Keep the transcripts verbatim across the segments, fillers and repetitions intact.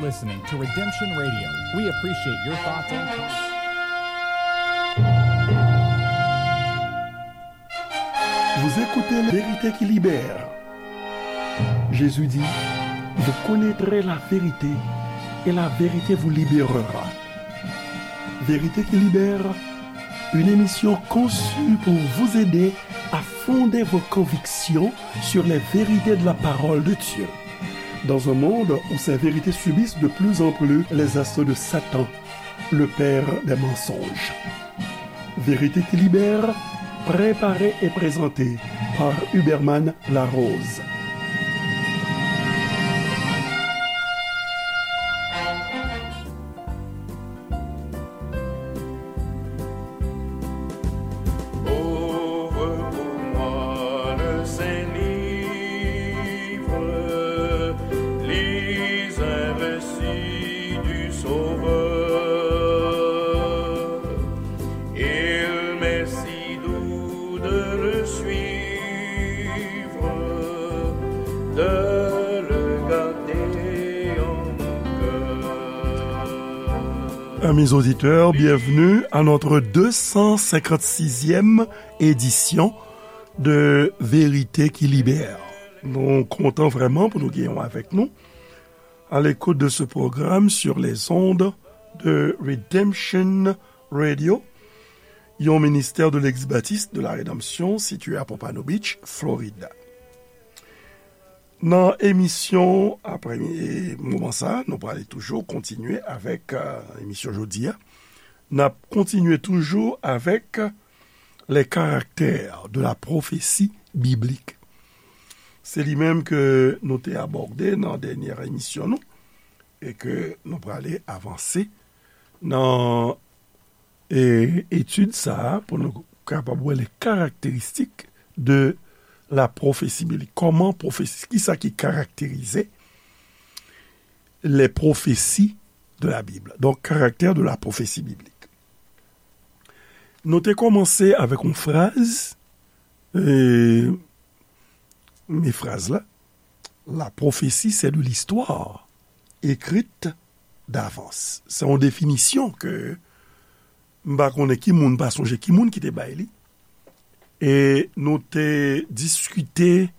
Listening to Redemption Radio. We appreciate your thoughts and comments. Vous écoutez La Vérité qui libère. Jésus dit, vous connaîtrez la vérité et la vérité vous libérera. Vérité qui libère, une émission conçue pour vous aider à fonder vos convictions sur les vérités de la parole de Dieu. Dans un monde où ces vérités subissent de plus en plus les assauts de Satan, le père des mensonges. Vérité qui libère, préparée et présentée par Huberman Larose. Ouvre pour moi le saint livre, lis un récit du Sauveur. Il m'est si doux de le suivre, de le garder en mon cœur. Amis auditeurs, bienvenue à notre deux cent cinquante-sixième édition de Vérité qui libère. Nou kontan vrèman pou nou genyen w avèk nou à l'écoute de ce programme sur les ondes de Redemption Radio, yon ministè de l'Eglise Baptiste de la Rédemption situé à Pompano Beach, Floride. Nan emisyon apre moman sa, nou prale toujou kontinye avèk, euh, emisyon jodi a. N ap kontinye toujou avèk les caractères de la prophétie biblique. Se li menm ke nou te abòde nan dènyè emisyon nou, e ke nou prale avanse nan, e, etid sa a pou nou kapab wè les caractéristiques de la prophétie biblique. Kòman pwofesi, kisa ki karakterize les prophéties de la Bible. Donc, caractère de la prophétie biblique. Nou te kòmanse avèk yon fraz, e, men fraz la, la prophétie, c'est de l'histoire écrite d'avance. Se yon definisyon ke m pa konnen ki moun, pa sonje ki moun ki te bay li. E nou te diskite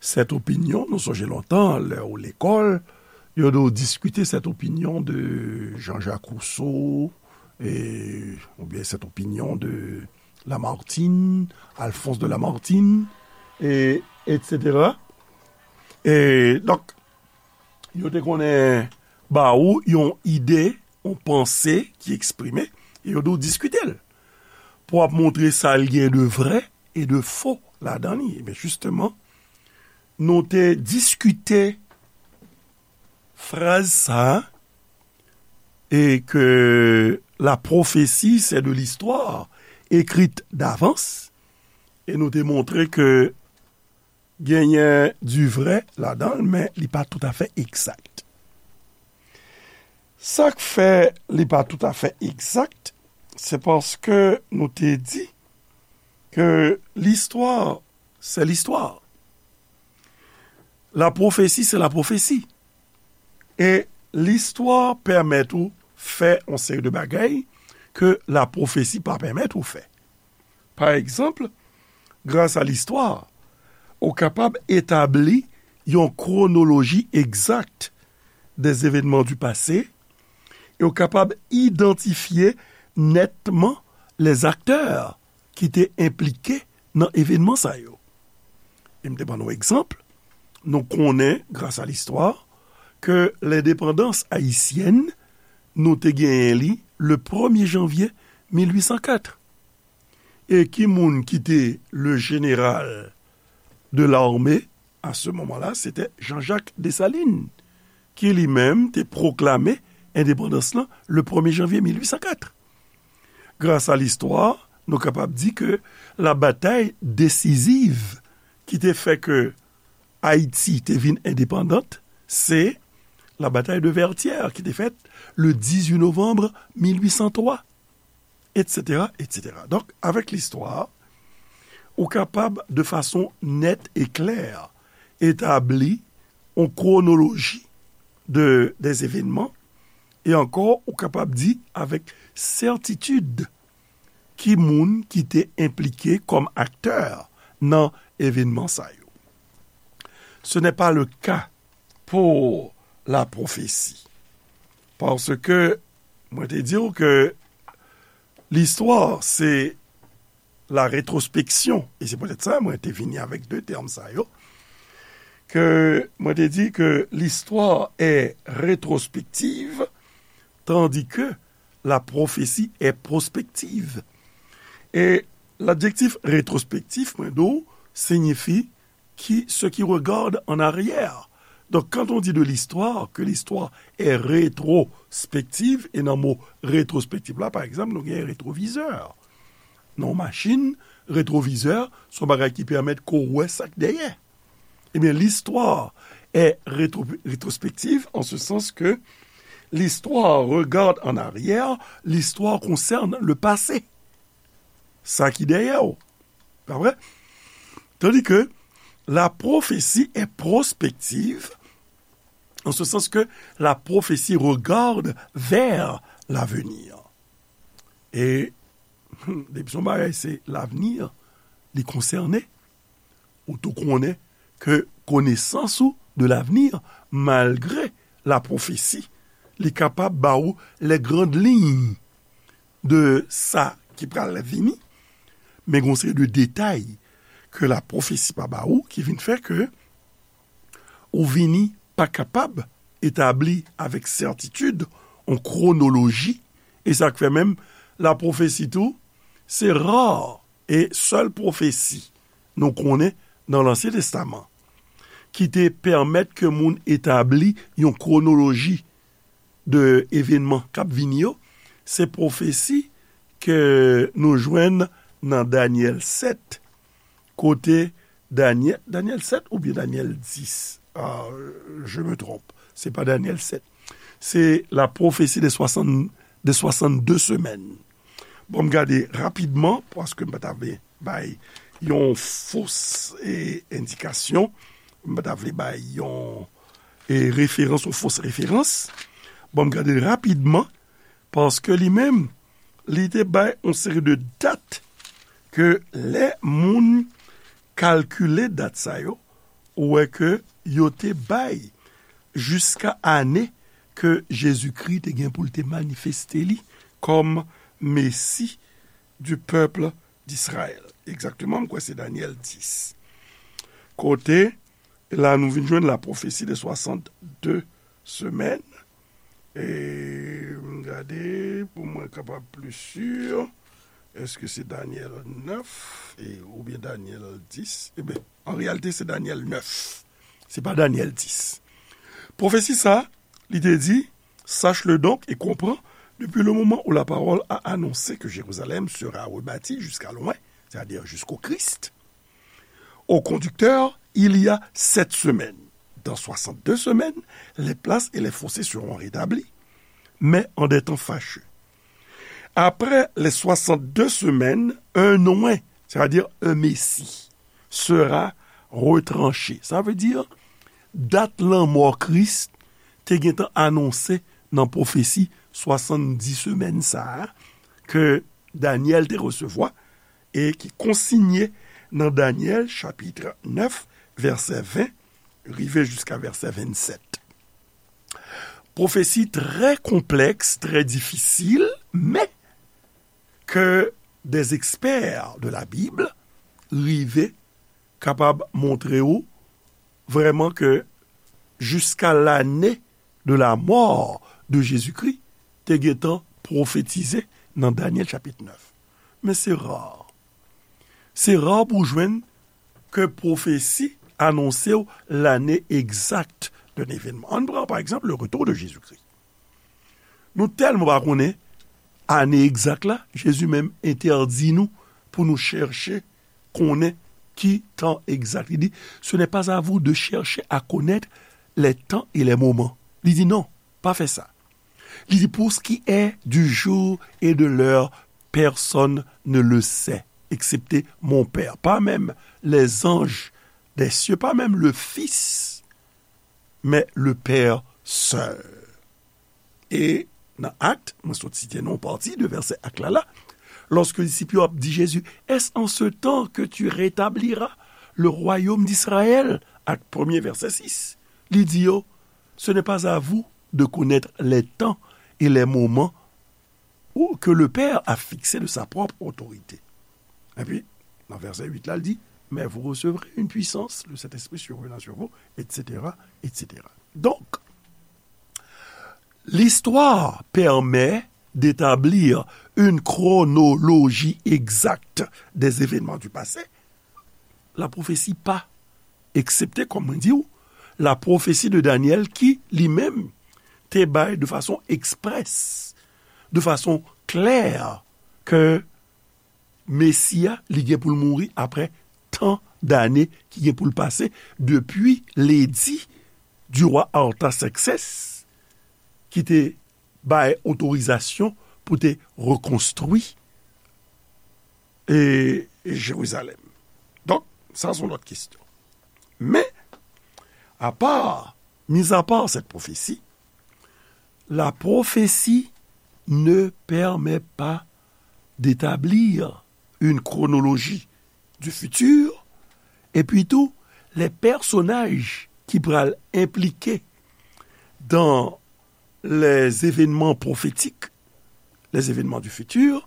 cette opinion, nou sonje lontan, lè ou lekòl, yo te diskite cette opinion de Jean-Jacques Rousseau, e, oubyen cette opinion de Lamartine, Alphonse de Lamartine, e, et cetera. E, donk, yo te konnen ba ou yon ide, yon panse ki eksprime, e yo te diskite l. Pou ap montre sa l gen de vrè e de fo ladan li. Ebyen, jisteman, nou te diskite fraz sa a, e ke la prophétie, c'est de l'histoire écrite d'avance, e nou te montre ke genyen du vrai ladan l, men li pa toutafè egzak. Sa k fè li pa toutafè egzak, se paske nou te di ke listwa, se listwa. La prophétie, c'est la prophétie. E listwa pèmèt ou fè yon seri de bagay ke la prophétie pa pèmèt ou fè. Pa egzanp, gras a listwa, ou kapab etabli yon kwonoloji egzak des événements du passé, e ou kapab idantifye nètman les acteurs ki te enplike nan evènman sa yo. E m te ban nou egzanp, nou konnen, gras a listwa, ke lendepandans ayisyèn, nou te genyen li le premye janvye mil uit san kat. E ki moun ki te le général de l'armée à ce moment-là? Se te Jean-Jacques Dessalines, ki li menm te pwoklame endepandans lan le premye janvye mil uit san kat. Gras a listwa, nou kapab di ke la batay desiziv ki te fè ke Ayiti te vin endepandant, se la batay de Vertières ki te fèt le dizuit novanm mil uit san twa, et cetera, et cetera. Donk, avèk listwa, ou kapab, de fason nèt e klè, etabli yon kwonoloji de, des événements, e ankò, ou kapab di avèk sètitid ki moun ki te enplike kòm aktè nan evenman sa yo. Ce n'est pas le cas pour la prophétie. Paske mwen te di w ke listwa se la rétrospection, e se poutèt sa mwen te vini avèk de tèm sa yo, ke mwen te di ke l'histoire est rétrospective, tandis que la prophétie est prospective. E ladjektif rétrospectif, mwen di w, siyifi qui, ce qui regarde en arrière. Donc, quand on dit de l'histoire, que l'histoire est rétrospective, e nan mo rétrospective la, pa egzanp, nou gen retwovizè. Nan yon machin, retwovizè, se yon bagay ki pèmèt ke w wè sa k dèyè. Ebyen, l'histoire est rétro-, rétrospective en ce sens que l'histoire regarde en arrière, l'histoire concerne le passé. Sa ki dèyè w. Pa vre? Tandis que la prophétie est prospective, en ce sens que la prophétie regarde vers l'avenir. E depi se yon bagay se lavni, li konsène, ou tou konnen ke konesans ou de lavni, malgre la pwofesi, li kapab ba ou les grandes lignes de sa ki pral vini, men gen yon seri de detay ke la pwofesi pa ba ou ki vin fè ke ou vini pa kapab etabli avèk sètitid yon kwonoloji, e sa k fè menm la pwofesi tou, se ra e sèl pwofesi nou konnen nan Lansyen Testaman ki te pèmèt ke moun etabli yon kwonoloji de evenman k ap vini yo, se pwofesi ke nou jwenn nan Danyèl sèt, kote Danyèl, Danyèl sèt oubyen Danyèl dis? Ah, je me trompe. Se pa Danyèl sèt. Se la prophétie des soixante, des soixante-deux semaines. Bon, m gade rapidman, paske m pa ta vle bay yon fos, e, endikasyon. M pa ta vle bay yon, e, referans, yon fos referans. Bon, m gade rapidman, paske li menm, li te bay yon seri de dat ke lè moun kalkile dat sa yo, ou wè ke yo te bay jiska ane ke Jezikri te gen pou l te manifeste li kòm Mesi du peuple d'Israël. Egzakteman, m kwè se Danyèl dis. Kote, la nou vin jwenn la prophétie des soixante-deux semaines. E m gade, pou mwen kapab pli si, èske se Danyèl nèf, e, oubyen Danyèl dis? Eben, an reyalite, se Danyèl nèf. Se pa Danyèl dis. Pwofesi sa, li te di, sache-le donc et comprends, depuis le moment où la parole a annoncé que Jérusalem sera rebâtie jusqu'à loin, c'est-à-dire jusqu'au Christ, au conducteur, il y a sept semaines. Dans soixante-deux semaines, les places et les fossés seront rétablis, mais en des temps fâcheux. Après les soixante-deux semaines, un oint, c'est-à-dire un Messie, sera retranché. Sa vle di, dat lanmò Kris te gentan anonse nan pwofesi swasanndis semèn sa a ke Danyèl te resevwa e ki konsinye nan Danyèl chapit nèf, vèsè ven, rive jiska vèsè vennsèt. Pwofesi trè konplèks, trè difisil, men ke des experts de la Bible rive kapab montre ou vrèman ke jiska lane de la mò de Jezikri te gentan pwofetize nan Danyèl chapit nèf. Men se ra. Se ra pou w jwenn ke pwofesi anonse w lane egzak de evenman. Ann pran, pa egzanp, le retour de Jésus-Christ. Nou tèlman pa konnen ane egzak la, Jezi menm entèdi nou pou nou chèche konnen ki tan egzak. Li di, ce n'est pas à vous de chercher à connaître les temps et les moments. Li di, non, pa fè sa. Li di, pour ce qui est du jour et de l'heure, personne ne le sait, excepté mon Père. Pas même les anges des cieux, pas même le Fils, mais le Père sè. E nan Akt, mwen sot site nan yon pati de vèsè Akt la la, lòske disip yo ap di Jezi, Est-ce en ce temps que tu rétabliras le royaume d'Israël? Akt premye, vèsè sis. Li di yo, Ce n'est pas à vous de connaître les temps et les moments ou que le Père a fixés de sa propre autorité. Epi, nan vèsè uit la, l di, Mais vous recevrez une puissance, le Saint-Esprit survenant sur vous, et cetera, et cetera. Donc, l'histoire permet d'établir une chronologie exacte des événements du passé. La prophétie pas, excepté, comme on dit, la prophétie de Daniel qui, lui-même, te bay de façon expresse, de façon claire, que Mesi a, li gen pou l mouri apre tan dane ki gen pou l pase depi ledi du roi Artaxerxès ki te bay otorizasyon pou te rekonstwi e Jerizalèm. Donk, sa se yon lòt kesyon. Men, apa, mis à part cette prophétie, la prophétie ne permet pas d'établir une chronologie du futur, epi tou, les personnages ki pral enplike dans les événements prophétiques, les événements du futur,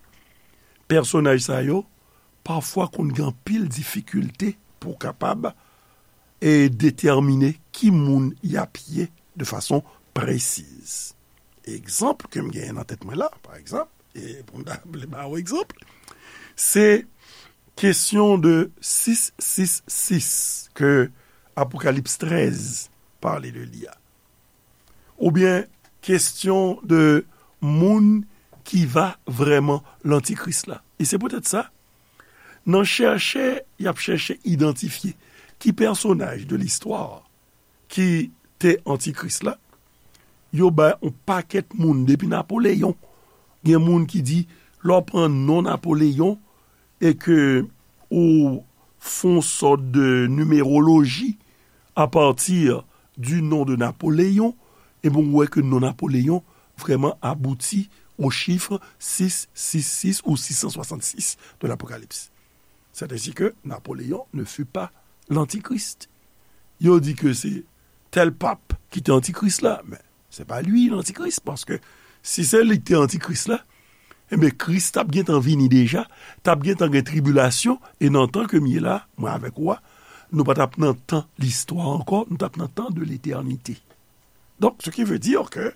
pèsonaj sa yo pafwa konn gen anpil difikilte pou kapab e detèmine ki moun y ap ye de fason presiz. Egzanp ke m genyen nan tèt mwen la, pa egzanp, e pou m ta vle ba w egzanp, se kesyon de sis sis sis ke Apokalips trèz pale de li a. Oubyen kesyon de moun ki va vrèman lantikris la. E se poutèt sa, nan chèche, y ap chèche idantifye ki pèsonaj de listwa ki te antikris la, yo bay yon pakèt moun depi Napoleyon. Gen moun ki di, lè w pran non Napoleyon e ke ou fè yon sòt de nimeroloji apati du nom de Napoléon, ebyen, ou wè ke non Napoleyon vrèman abouti au chiffre six six six ou six cent soixante-six de l'Apocalypse. C'est ainsi que Napoléon ne fut pas l'antichrist. Yo di ke se tèl pap ki te antikris la, men se pa li lantikris, paske si se li ki te antikris la, ebyen, Kris t ap gentan vini deja, t ap gentan gen tribilasyon, e nan tan ke m ye la, mwen avèk ou a, nou pa t ap nan tan listwa ankò, nou t ap nan tan de letènite. Donk, ce qui veut dire que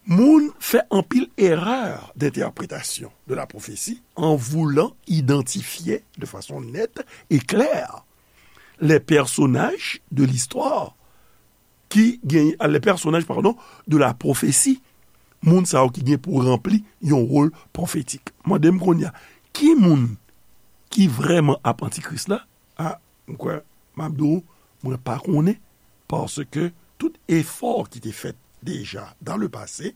moun fè anpil erè d'entèpretasyon de la pwofesi an voulan idantifye de fason nèt e klè les personnages de l'histoire ki gen, les personnages, pardon, de la prophétie, moun sa yo ki gen pou ranpli yon wòl pwofetik. Mande m kounye a, ki moun ki vrèman ap antikris la? A, m kwè, m ap di w, mwen pa konnen, paske tout efò ki te fèt deja dans le passé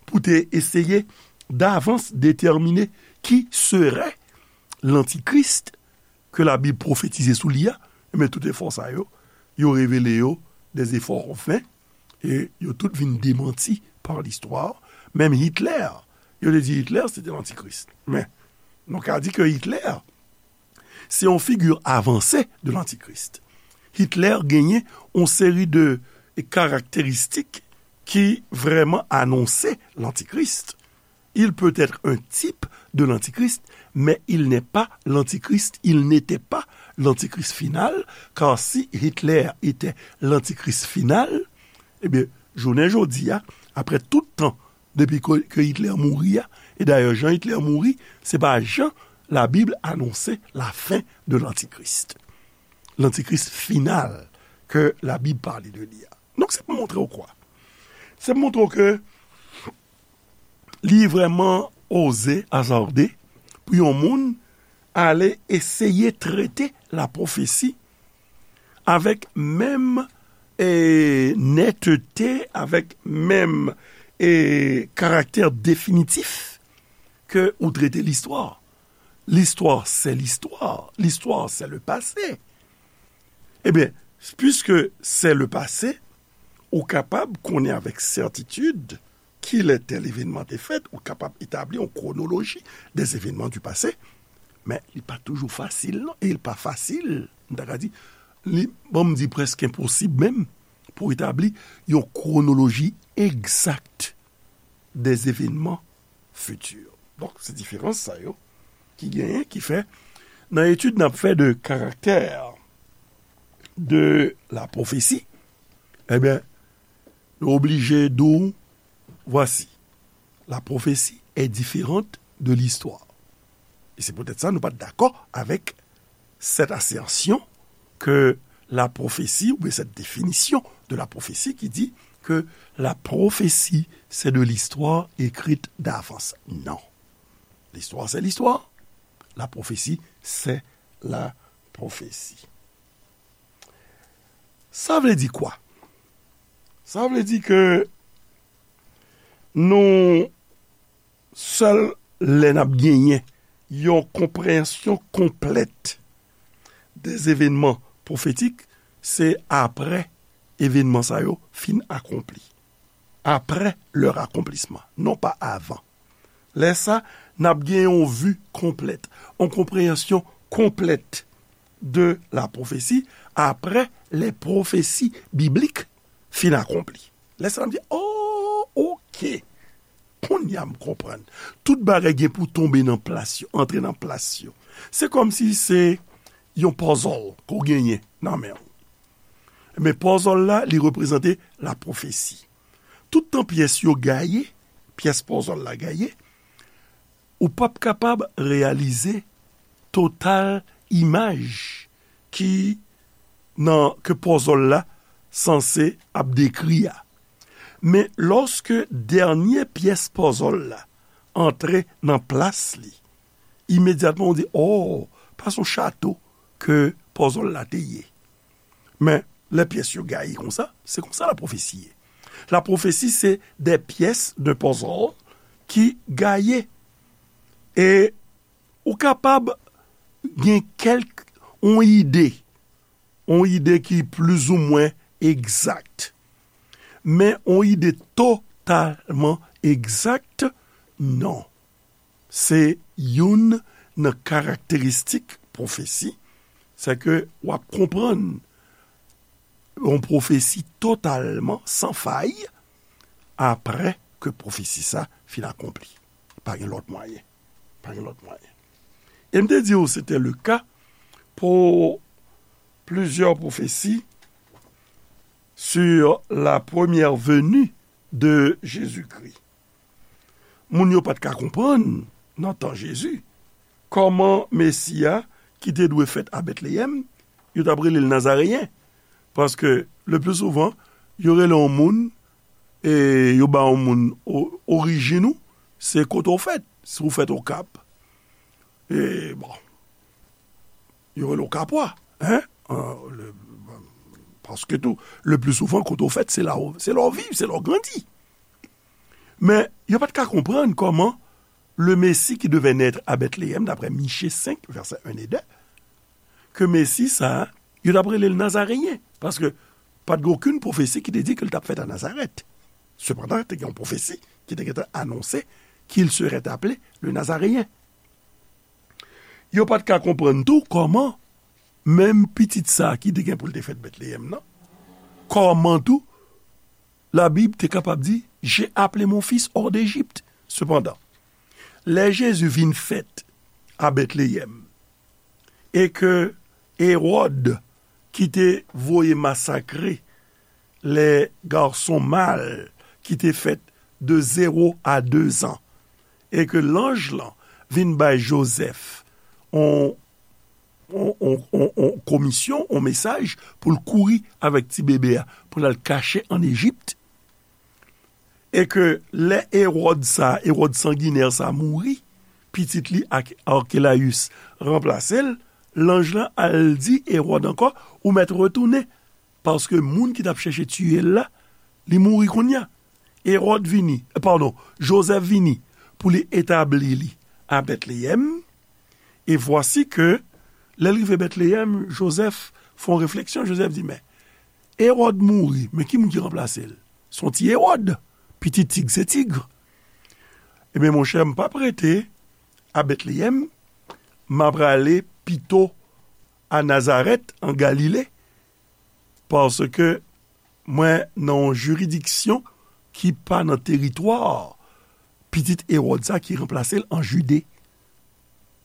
pou te eseye davans detèmine qui serait l'antichrist ke Labib pwofetize sou li a, men tout efò sa yo, yo revele yo des efforts vains, e yo tout vin demanti par l'histoire. Menm Hitler, yo te di Hitler se te lantikris. Men, nou ka di ke Hitler, se yon figi avanse de lantikris. Hitler genyen yon seri de karakteristik ki vrèman anonse lantikris. Il peut être un type de l'antichrist, mais il n'est pas l'antichrist, il n'était pas l'antichrist final, car si Hitler était l'antichrist final, ebyen, jounen jodi a, apre tout tan depi ke, ke Hitler mouri a, e dayè, jan Hitler mouri, se pa jan Labib anonse lafen de lantikris. Lantikris final ke Labib pale de li a. Donk, se pou montre w kwa? Se pou montre w ke li vrèman oze, azarde pou yon moun ale eseye trete la pwofesi avèk menm, e, nètete, avèk menm, e, karaktè definitif ke ou trete listwa. L'histoire, c'est l'histoire. L'histoire, c'est le passé. Ebyen, puisque c'est le passé, Ou kapab konnen avèk sètitid kilè tèl evènman te fèt, ou kapab etabli yon kwonoloji des événements du passé, men li pa toujou fasil, non, e li pa fasil, m ta ka di, li, bon, m di prèske enposib menm, pou etabli yon kwonoloji egzak des événements futurs. Donk, se diferans sa yo ki genyen, ki fè, nan etid n ap fè de karaktè de la pwofesi, ebyen, nou oblije di w, voici, la prophétie est différente de l'histoire. E se poutèt sa nou pa t dakò avèk cette assertion que la prophétie, oubyen cette définition de la prophétie qui dit que la prophétie, c'est de l'histoire écrite d'avance. Non. L'histoire, c'est l'histoire. La prophétie, c'est la prophétie. Sa vle di kwa? Sa vle di ke nou sèl lè n ap genyen yon konpreyansyon konplèt des événements prophétiques, se apre evènman sa yo fin akonpli. Après leur accomplissement, non pa avan. Lè sa, n ap gen yon vi konplèt, yon konpreyansyon konplèt de la prophétie après les prophéties bibliques fin akonpli. Lè sa, n ap di, oh, ok. Kounye a m konprann. Tout bagay gen pou tonbe nan plas yo, antre nan plas yo. Se kòmsi se yon puzzle ke w genyen nan men w. Men puzzle la, li reprezante la pwofesi. Tout tan pyès yo gaye, pyès puzzle la gaye, ou p ap kapab reyalize total imaj ki nan, ke puzzle la sanse ap dekri a. Men lòske dènye pyès puzzle la antre nan plas li, imedyatman ou di, oh, pa se yon chato ke puzzle la te ye. Men lè pyès yo gaye konsa, se konsa la pwofesi ye. La pwofesi se de pyès de puzzle ki gaye. E ou kapab gen kèlk, yon ide, yon ide ki plizoumwen egzak. Men yon ide totalman egzak, non. Se youn nan karakteristik pwofesi, se ke w ap konprann yon pwofesi totalman san fay apre ke pwofesi sa fin akonpli. Pa gen lòt mwayen. Pa gen lòt mwayen. E m te di w se te le ka pou plizyè pwofesi sur la première venue de Jésus-Christ. Moun yo pa t ka konprann, nan tan Jezi, kòman Mesi a ki te dwe fèt a Betleyèm, yo t ap rele l Nazareyen. Paske, le pli souvan, yo rele yon moun, e yo ba yon moun o-, orijin ou, se kote w fèt. Si w fèt Okap, e bon, yo rele w Kapwa, hein? Euh, le, paske tou, le pli souvan, kote w fèt, se la w, se la w viv, se la w grandi. Men, yo pa t ka konprann kòman le Messie qui devait naître à Bethléem, d'après Michée senk, vèsè en e de, ke Mesi sa a, yo t ap rele l Nazareyen, paske pa t gen okenn pwofesi ki te di ke l t ap fèt a Nazarèt. Sepandan, te gen yon pwofesi ki te gentan anonse qu'il serait appelé le Nazaréen. Yo pa t ka konprann tou kòman menm pitit sa a ki te gen pou l te fèt Betleyèm nan, kòman tou Labib te kapab di, j'ai appelé mon fils hors d'Égypte. Sepandan, lè Jezi vin fèt a Betleyèm, e ke Ewòd ki te voye masakre les garçons mâles ki te fèt de zéro à deux ans, e ke lanj lan vin bay Jozèf on, on, on, on, on komisyon, on mesaj pou l kouri avèk ti bebe a, pou l al kache ann Ejip. E ke lè Ewòd sa, Ewòd sanginè sa mouri, pitit li Ak-, Arkelayis ranplase l, lanj lan al di Ewòd ankò, ou mèt retounen, paske moun ki t ap chèche tiye l la, li mouri kounye a. Ewòd vini, eh, padon, Jozèf vini pou li etabli li a Betleyèm. E vwasi ke, lè l rive Betleyèm, Jozèf fè yon refleksyon. Jozèf di, men, Ewòd mouri, men ki moun ki ranplase l? Se yon ti Ewòd. Pitit tig se tig. Ebyen, monchè, m p ap rete a Betleyèm, m a prale pito a Nazarèt, an Galile, paske mwen nan yon jiridiksyon ki pa nan teritwa pitit Ewòd sa ki ranplase l an Jide.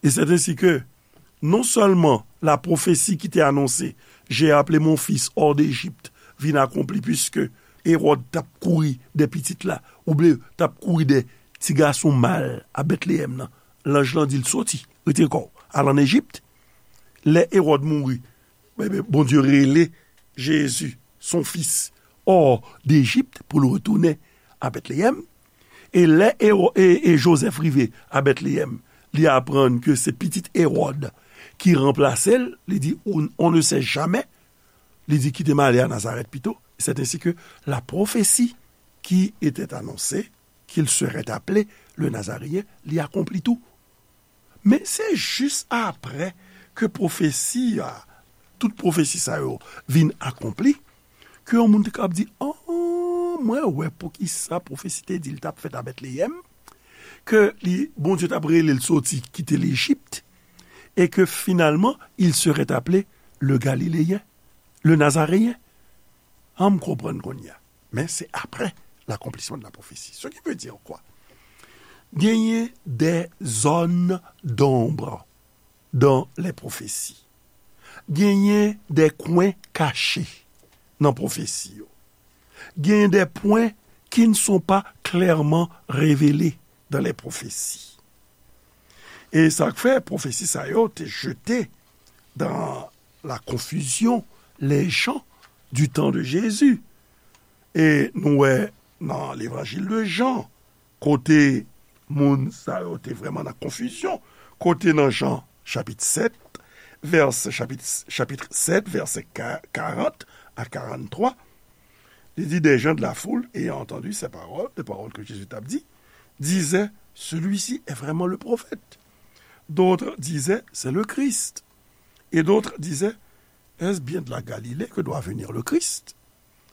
E c'est ainsi que, non sèlman la pwofesi ki te anonse, J'ai appelé mon fils hors d'Égypte, vin akonpli, piske Ewòd t ap kouri dè pitit la, oubyen t ap kouri dè ti gason mal a Betleyèm nan. Lanj lan di l, soti, retire kò w, al ann Ejip. Lè Ewòd mouri, Bondye rele Jezi, son fis, hors d'Égypte, pou l retounen a Betleyèm. E lè Ewo- e, e Jozèf rive a Betleyèm, li aprann ke se pitit Ewòd ki ranplase l, li di, on, on ne sait jamais, li di, kite m ale a Nazarèt pito. C'est ainsi que la prophétie qui était annoncée, qu'il serait appelé le Nazaréen, li akonpli tou. Men se jis apre ke pwofesi a, tout pwofesi sa yo vin akonpli, ke yon moun te kab di, oh, mwen wè poukisa pwofesi te di l t ap fèt a Betleyèm, ke li, Bondye t ap rele l soti kite Lejip, e ke finalman, il serait appelé le Galiléen, le Nazaréen. An m konprann kounye a. Men se apre l'accomplissement de la prophétie. Ce qui veut dire quoi? Genyen des zones d'ombre dans les prophéties. Genyen des coins cachés nan pwofesi yo. Genyen des points qui ne sont pas clairement révélés dans les prophéties. E sa k fè pwofesi sa yo te jete dans la confusion les gens du temps de Jésus. E nou wè nan levanjil de Jan, kote moun sa yo te vrèman nan konfizyon, kote nan Jan chapit sèt, vèsè, chapit, chapit sèt, vèsè ka- karant a karant twa, li di, des gens de la foule, ayant entendu ces paroles, les paroles que Jésus t ap di, disaient, celui-ci est vraiment le prophète. D'autres disaient, c'est le Christ. Et d'autres disaient, est-ce bien de la Galilée que doit venir le Christ?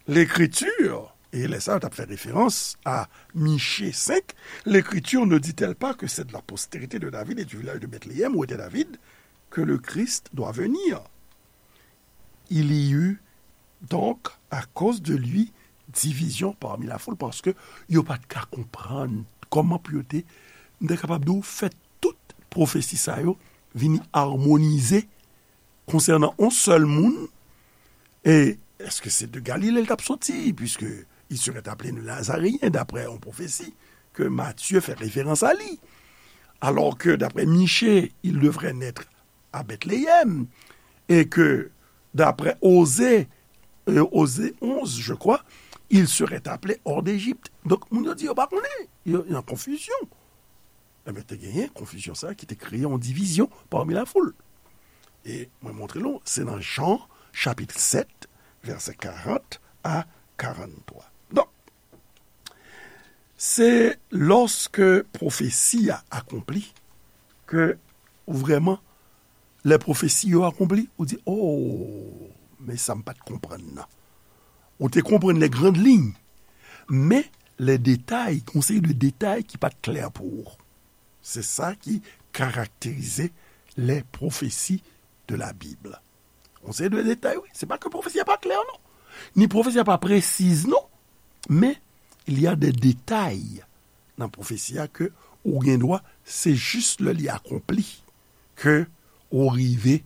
L'écriture, e lè sa yo t ap fè referans a Miche senk, l'écriture ne dit-elle pas que c'est de la postérité de David et du village de Bethléem où était David que le Christ doit venir? Il y eut donc à cause de lui division parmi la foule, paske yo pa t ka konprann kòman pou yo te, m te kapab di w, fè tout pwofesi sa yo vini amonize konsènan yon sèl moun. E èske se de Galile l t ap soti, puisque il serait appelé le Nazaréen, d'après yon pwofesi ke Matye fè referans a li? Alors que, d'après Miche, il devrait naître à Bethléem, et que, d'après Osée, euh, Osée onze, je crois, il serait appelé hors d'Égypte. Donk, moun yo di yo pa konnen, yo nan konfizyon. Ebyen, te genyen konfizyon sa ki te kreye yon divizyon parmi la foule. E mwen montre nou, se nan Jan, chapit sèt, vèsè karant a karant twa. Donk, se lòske pwofesi a akonpli ke ou vrèman, lè pwofesi yo akonpli, ou di, oh, men sa m pa t konprann nan. Ou te konprann les grandes lignes, men les détails, gon seri de detay ki pa t klè pou ou. Se sa ki karakterize les prophéties de la Bible. Gon seri de detay, wi. Se pa ke pwofesi a pa klè, non. Ni pwofesi a pa presiz, non. Men, il y a des détails nan pwofesi a ke ou gen dwa, se jis lè li akonpli ke ou rive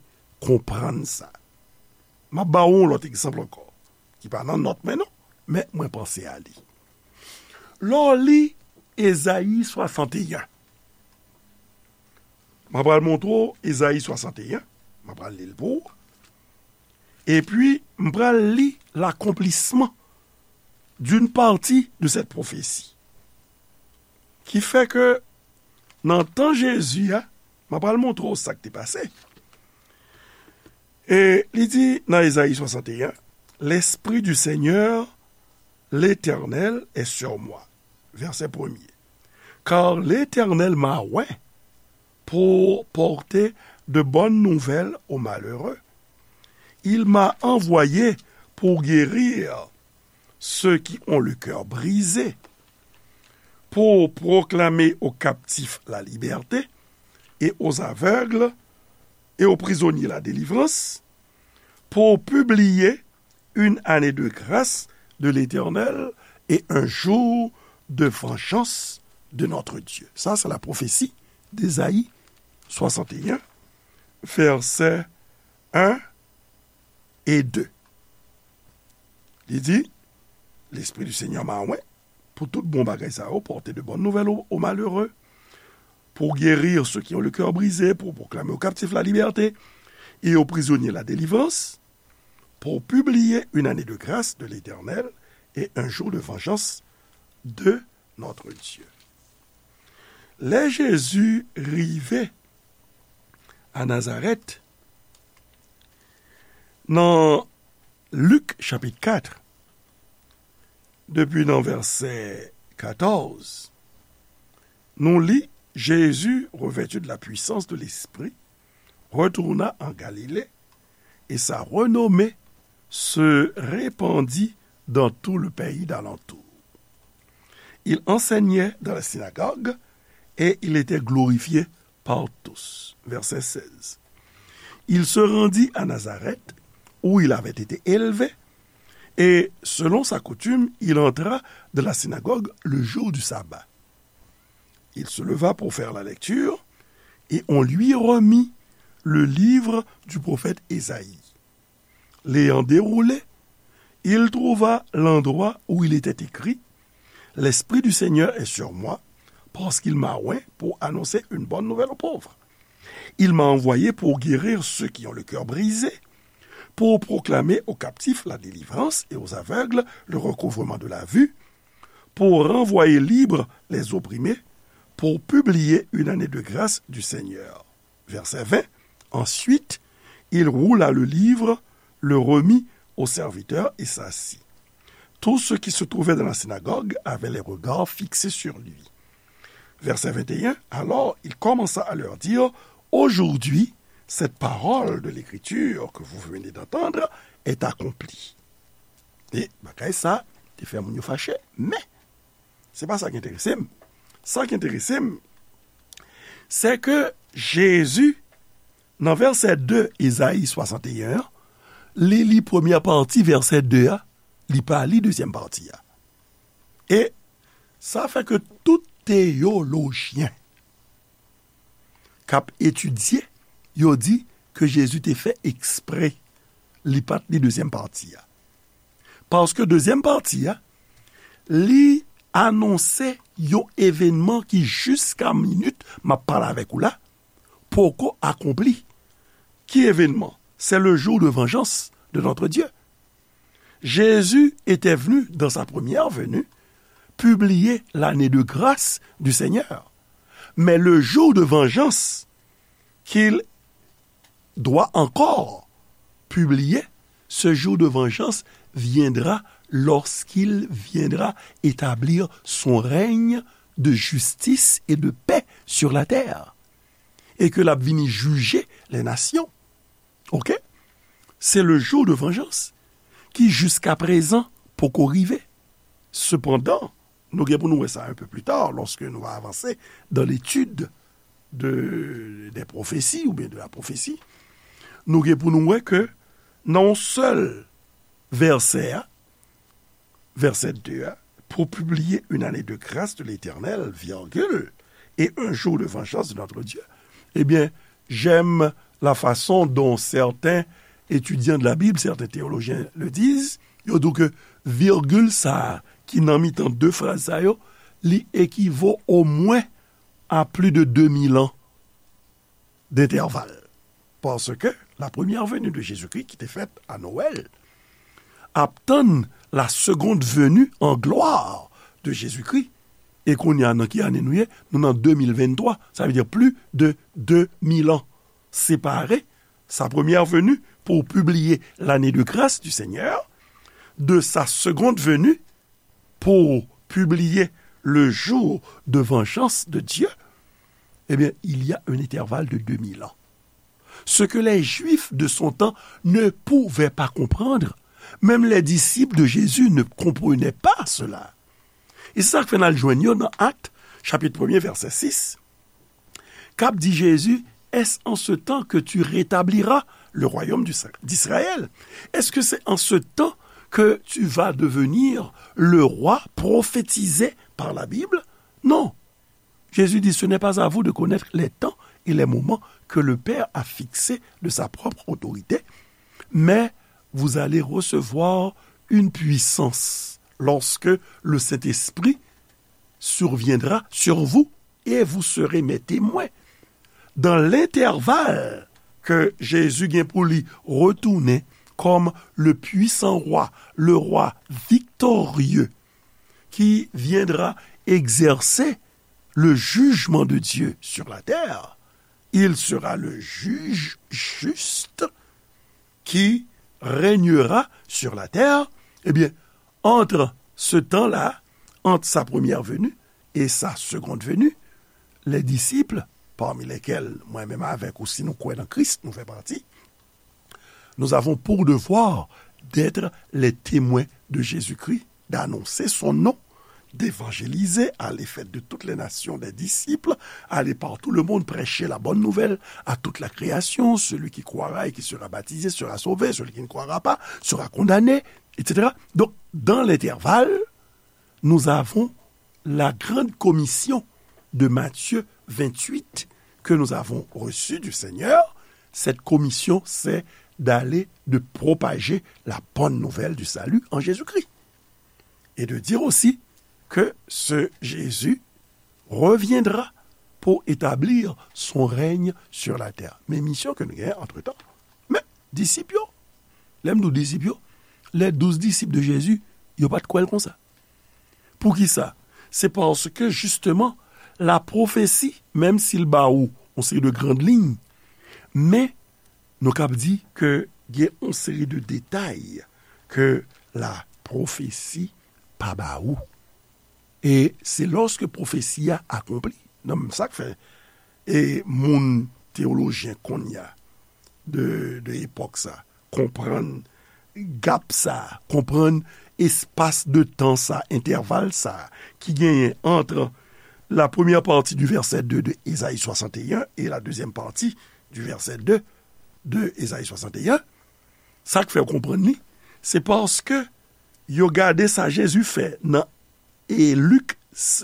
konprann sa. M ap ba w yon lòt egzanp ankò, ki pa nan nòt mwen non, men mwen panse a li. Lè w li Ezayi swasanteyen, m ap pral montre w Ezayi swasanteyen, m ap pral li l pou w. Epi, m pral li l'accomplissement d'une partie de cette prophétie. Ki fè ke nan tan Jezi a, m ap pral montre w sa k te pase. E li di nan Ezayi swasanteyen, L'Esprit du Seigneur, l'Éternel, est sur moi. Vèsè premye. Car l'Éternel m'a oint pour porter de bonnes nouvelles aux malheureux. Il m'a envoyé pour guérir ceux qui ont le cœur brisé, pour proclamer aux captifs la liberté et aux aveugles et aux prisonniers la délivrance, pour publier une année de grâce de l'Éternel et un jour de vengeance de notre Dieu. Sa se la pwofesi d'Ésaïe swasanteyen, vèsè en e de. Li di, Lespri di Senyè mwen, pou tout bon bagay sa yo, porter de bonnes nouvelles aux, aux malheureux, pour guérir ceux qui ont le cœur brisé, pour proclamer aux captifs la liberté et aux prisonniers la délivrance, pour publier une année de grâce de l'Éternel et un jour de vengeance de notre Dieu. Lè Jezi rive a Nazarèt, nan Lik chapit kat, depi nan vèsè katòz, nou li, Jésus, revêtu de la puissance de l'Esprit, retourna en Galilée, et sa renommée se répandit dans tout le pays d'alentour. Il enseignait dans la synagogue et il était glorifié par tous. Verset seize. Il se rendit à Nazareth, où il avait été élevé, et selon sa coutume, il entra dans la synagogue le jour du sabbat. Il se leva pour faire la lecture, et on lui remit le livre du prophète Ésaïe. L'ayant déroulé, il trouva l'endroit où il était écrit : « L'Esprit du Seigneur est sur moi, parce qu'il m'a oint pour annoncer une bonne nouvelle aux pauvres. Il m'a envoyé pour guérir ceux qui ont le cœur brisé, pour proclamer aux captifs la délivrance et aux aveugles le recouvrement de la vue, pour renvoyer libres les opprimés, pour publier une année de grâce du Seigneur. » Verset vingt. Ensuite, il roula le livre, le remit au serviteur et s'assit. Tous ceux qui se trouvaient dans la synagogue avaient les regards fixés sur lui. Verset vingt et un. Alors il commença à leur dire : « Aujourd'hui, cette parole de l'Écriture que vous venez d'entendre est accomplie. » E bagay sa te fè moun yo fache, men se pa sa ki enterese m. Sa ki enterese m, se ke Jezi, nan vèsè de Ezayi swasanteyen an, li li premyè pati vèsè de a, li pa li dezyèm pati a. E sa fè ke tout teyolojyen k ap etidye, yo di ke Jezi te fè ekspre li pa t li dezyèm pati a. Paske dezyèm pati a, li anonse yon evènman ki jiska minit m ap pale avèk ou la, poko akonpli. Ki evènman? C'est le jour de vengeance de notre Dieu. Jésus était venu, dans sa première venue, publier l'année de grâce du Seigneur. Mais le jour de vengeance qu'il doit encore publier, ce jour de vengeance viendra lorsqu'il viendra établir son règne de justice et de paix sur la terre. Et que l ap vini jije les nations. Ok? C'est le jour de vengeance qui, jusqu'à présent, poko rive. Cependant, nou gen pou nou wè sa un peu plus tard, lorsque nou va avanse dans l'étude de, des prophéties ou bien de la prophétie, nou gen pou nou wè ke nan yon sèl vèsè a, vèsè de a, pour publier une année de grâce de l'Éternel, virgule, et un jour de vengeance de notre Dieu. Eh bien, j'aime la façon dont certains étudiants de la Bible, certains théologiens le disent. Yo di ke virgil sa a ki nan mitan de fraz sa yo, li ekivo omwen a plus de deux mille ans d'intervalle. Parce que la première venue de Jésus-Christ, ki te fèt a Noël, ap tann la seconde venue en gloire de Jésus-Christ. E kounye a, nan ki ane nou ye? Nou nan de mil venntwa, sa vle di plus de deux mille ans séparés, sa première venue pour publier l'année de grâce du Seigneur, de sa seconde venue pour publier le jour de vengeance de Dieu, eh bien, il y a un intervalle de deux mille ans. Ce que les Juifs de son temps ne pouvaient pas comprendre, Même les disciples de Jésus ne comprenaient pas cela. E se sa k fè n al jwenn yo nan Actes, chapitre premier, verset six, k ap di Jezi, est-ce en ce temps que tu rétabliras le royaume du- d'Israël? Est-ce que c'est en ce temps que tu vas devenir le roi prophétisé par la Bible? Non. Jésus dit, ce n'est pas à vous de connaître les temps et les moments que le Père a fixés de sa propre autorité, mais vous allez recevoir une puissance lorsque le Saint-Esprit surviendra sur vous et vous serez mes témoins. Dans l'intervalle que Jésus gen pou li retounen comme le puissant roi, le roi victorieux, qui viendra exercer le jugement de Dieu sur la terre, il sera le juge juste qui régnera sur la terre. Eh bien, entre ce temps-là, entre sa première venue et sa seconde venue, les disciples, parmi lesquels moi-même avec ou, si nous croyons en Christ, nous fait partie, nous avons pour devoir d'être les témoins de Jésus-Christ, d'annoncer son nom, d'évangéliser, aller faire de toutes les nations des disciples, aller par tout le monde prêcher la bonne nouvelle à toute la création. Celui qui croira et qui sera baptisé sera sauvé, celui qui ne croira pas sera condamné, et cetera. Donc, dans l'intervalle, nous avons la grande commission de Matthieu vingt-huit que nous avons reçue du Seigneur. Cette commission, c'est d'aller, de propager la bonne nouvelle du salut en Jésus-Christ. Et de dire aussi que ce Jésus reviendra pour établir son règne sur la terre. Men misyon ke nou genyen antretan. Men, disip yo, lè m di w disip yo, les douze disciples de Jésus, yo pa t kwè l konsa. Poukisa? Se paske, jisteman, la pwofesi, menm si l ba ou yon seri de grann liy, men nou kab di ke gen yon seri de detay ke la pwofesi pa ba ou. E se lòske pwofesi a akonpli. Non, men sa k fè, e moun teyolojyen kounye a, de, de epòk sa, konprann gap sa, konprann espas de tan sa, entèval sa, ki genyen ant la première partie du verset deux de Ésaïe soixante et un et la deuxième partie du verset deux de Ésaïe soixante et un, sa k fè w konprann li, se paske yo gade sa Jezi fè nan, e Lik,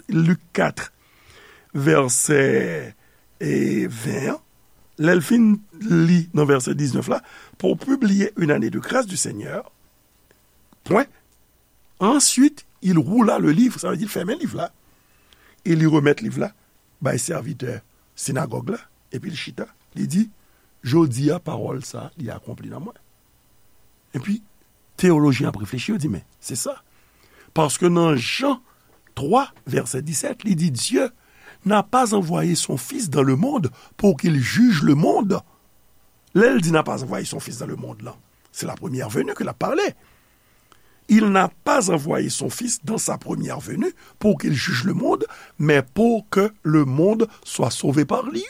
Lik kat, vèsè, e ven an, lè l fin li nan vèsè diznèf la, pour publier une année de grâce du Seigneur, point. Ensuite, il roula le livre, sa vle di l fèmen liv la, e li remèt liv la bay sèvitè sinagòg la, epi l chita, li di, jodi a, pawòl sa, li akonpli nan mwen. Epi, teyolojyen ap reflechi, yo di, men, se sa. Paske nan Jan twa, vèsè disèt, li di, Dieu n'a pas envoyé son Fils dans le monde pour qu'il juge le monde. Lè l di n'a pas envoyé son Fils dans le monde lan, se la première venue ke l ap pale. Il n'a pas envoyé son Fils dans sa première venue pour qu'il juge le monde, mais pour que le monde soit sauvé par lui.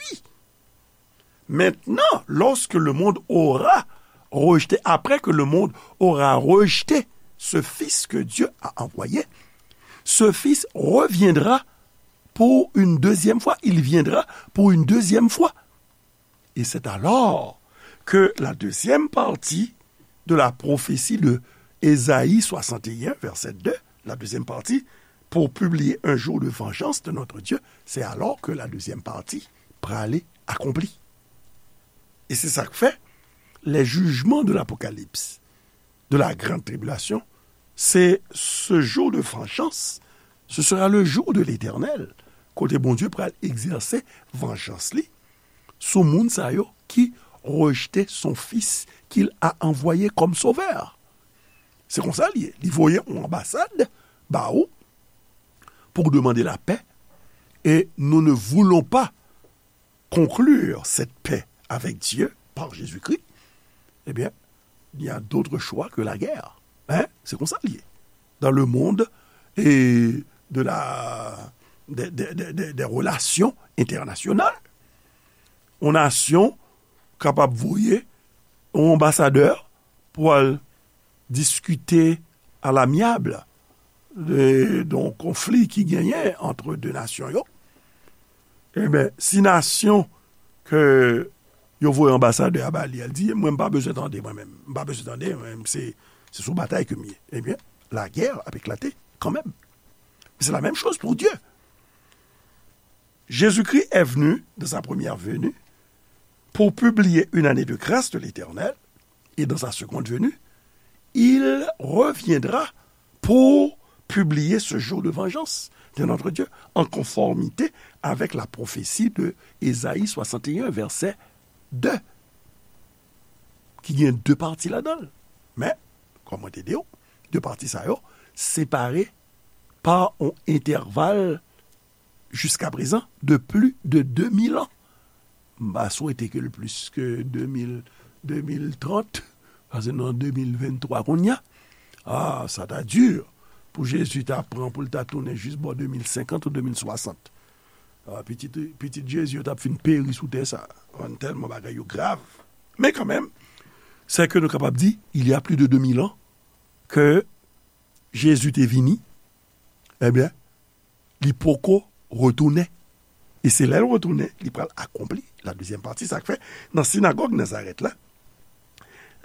Maintenant, lorsque le monde aura rejeté, après que le monde aura rejeté ce Fils que Dieu a envoyé, ce Fils reviendra pour une deuxième fois. Il viendra pour une deuxième fois. Et c'est alors que la deuxième partie de la prophétie de Ésaïe soixante et un, verset deux, la deuxième partie, pour publier un jour de vengeance de notre Dieu, c'est alors que la deuxième partie prale akonpli. E se sa k fè, les jugements de l'Apocalypse, de la grande tribulation, c'est ce jour de vengeance, ce sera le jour de l'Éternel, kote Bondye pral egzèse vanjans li sou moun sa yo ki rejte son Fils qu'il a envoyé comme sauveur. Se konsa li ye. Li voye yon anbasad ba ou pour demander la paix, et nous ne voulons pas conclure cette paix avec Dieu par Jésus-Christ, eh bien, il y a d'autres choix que la guerre. Hein? Se konsa li ye. Dans le monde et de la, des, des, des, des, des relations internationales, yon nasyon kapab voye yon anbasadè pou al diskite alamyab de yon konfli ki genyen ant de nasyon yo, ebyen, si nasyon ke yo voye anbasadè a ba li, al di, mwen, m pa bezwen tande, mwen menm. M pa bezwen tande, mwen, se, se sou batay ke m ye. Ebyen, lagè ap eklate kanmenm. Se la menm choz pou Dye. Jésus-Christ est venu dans sa première venue pour publier une année de grâce de l'Éternel, et dans sa seconde venue, il reviendra pour publier ce jour de vengeance de notre Dieu, en conformité avec la prophétie de Ésaïe soixante et un, verset deux, ki gen de pati ladan l. Men, kòm mwen te di w, de pati sa yo separe pa yon entèval jiskaprezan de plis de de mil an. M pa swete ke l plis ke de mil, de mil trant, paske nan de mil venntwa kounye a, ah, sa ta di pou Jezi ta pran pou l ta tounen jis bò de mil senkant ou de mil swasant. Ah, pitit, pitit Jezi yo t ap fin peri sou tè sa. Tèlman bagay yo grav. Men kanmenm, se ke nou kapab di, il y a plus de deux mille ans, ke Jezi te vini, ebyen, li poko retounen. E se lè l retounen, li pral akonpli la dezyèm pati, sa k fè, nan sinagòg Nazarèt la,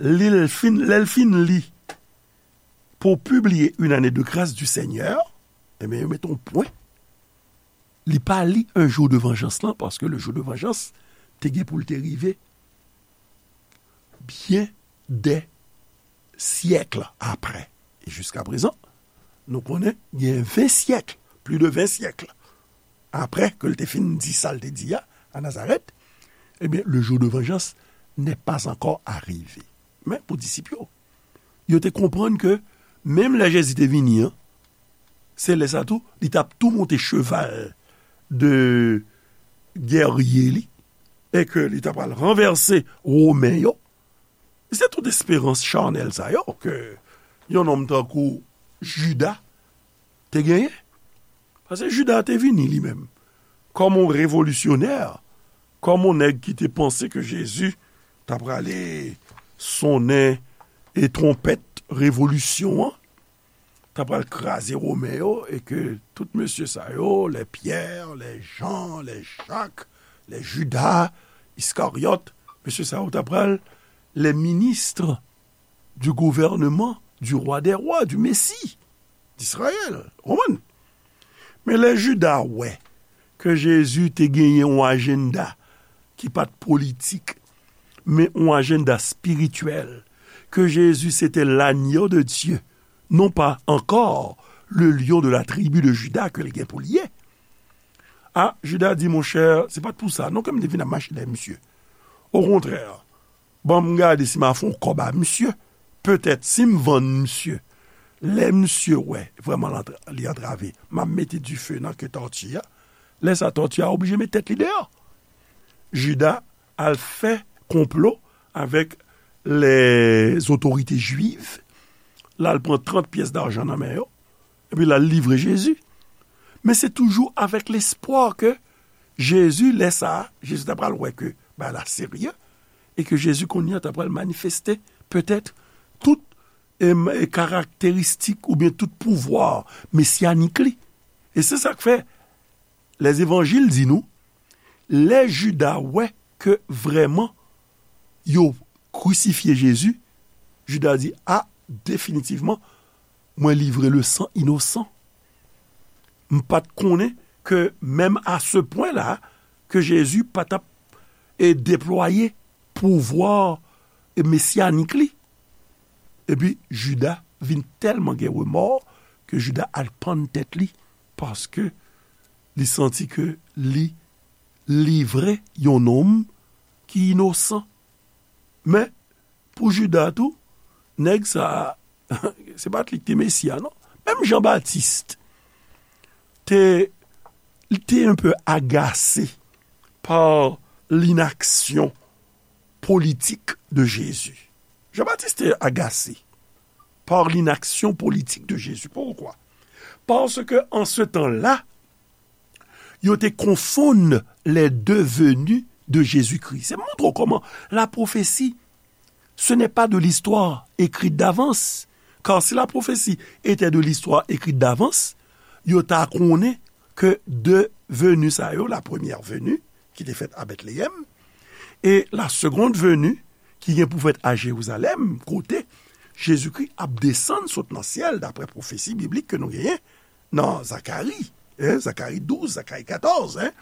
li l fin, lè l fin li, pour publier une année de grâce du Seigneur, ebyen, yo mete yon pwen. Li pa li un jour de vengeance lan, paske le jour de vengeance te gen pou l te rive byen dè syèk apre. E jiskaprezan, nou konnen gen ven syèk, plis de ven syèk apre ke l te fin di sa l te di a, a Nazarèt, ebyen, le jour de vengeance n'est pas encore arrivé. Men pou disip yo, yo te konprann ke menm lè Jezi te vini an, se lè sa tou, li t ap tou monte cheval de gèrye li, e ke li t ap al ranvèse Women yo. Se tout esperans chanèl sa yo ke yon nonm tankou Jida te genyen. Paske Jida te vini li menm kòm yon revolisyonè, kòm yon nèg ki te panse ke Jezi ta prale sonnen e twonpèt revolisyon an, ta pral kraze Women yo, e ke tout mesye sa yo, lè Pyè, lè Jan, lè Jak, lè Jida Iskaryòt, mesye sa yo ta pral les ministres du gouvernement du roi des rois, du Messie d'Israël. Ou konprann? Men lè Jida wè ke Jezi te genyen yon ajanda ki pa t politik, men yon ajanda espirityèl, ke Jezi se te l'agneau de Dieu, non pas encore le lion de la tribu de Juda ke l gen pou l ye. A, Jida di, monchè, se pa t pou sa non ke m te vin ap mache dèyè misye. Okontrè, ban m gade si m a fè yon kòb a misye. Petèt, si m vann misye, lè misye wè vrèman l antra-, li antrave, m ap mete dife nan ke tòti a. Lè sa, tòti a oblije met tèt li deyò. Jida al fè konplo avèk lèzotorite jwiv, l al pran trant pyès dajan nan men yo, epi l al livre Jezi. Men se toujou avèk lespwa ke Jezi, lè sa a, Jezi ta pral wè ke bagay la serye, e ke Jezi kounye a ta pral manifeste petèt tout, em, e karakteristik oubyen tout pouvwa mesyanik li. E se sa k fè Lèzevanjil di nou, lè Jida wè ke vrèman yo krisifye Jezi, Jida di, a, definitivman, mwen livre le san inosan. M pa t konnen ke menm a se pwen la, ke Jezi pa t ap, e, deplwaye pouvwa, e, mesyanik li. Epi Jida vin tèlman gen remò ke Jida al pann tèt li, paske li santi ke li livre yon nonm ki inosan. Men, pou Jida tou, nèg sa a, se pa t li ki te Mesi a, non. Menm Jan Batis te, li te un peu agase pa linaksyon politik de Jezi. Jan Batis te agase pa linaksyon politik de Jezi. Poukwa? Paske an se tan-là, yo te konfonn les deux venues de Jésus-Christ. Se montre w kòman la prophétie, ce n'est pas de l'histoire écrite d'avance, Car si la prophétie était de l'histoire écrite d'avance, yo ta konnen ke de veni sa yo, la première venue, ki te fèt a Bètleyèm, e la seconde venue, ki gen pou fèt a Jerizalèm, kote Jezikri ap desann sot nan syèl, daprè pwofesi biblik ke nou genyen nan Zakari, hein, Zakari douz, Zakari katòz, hein.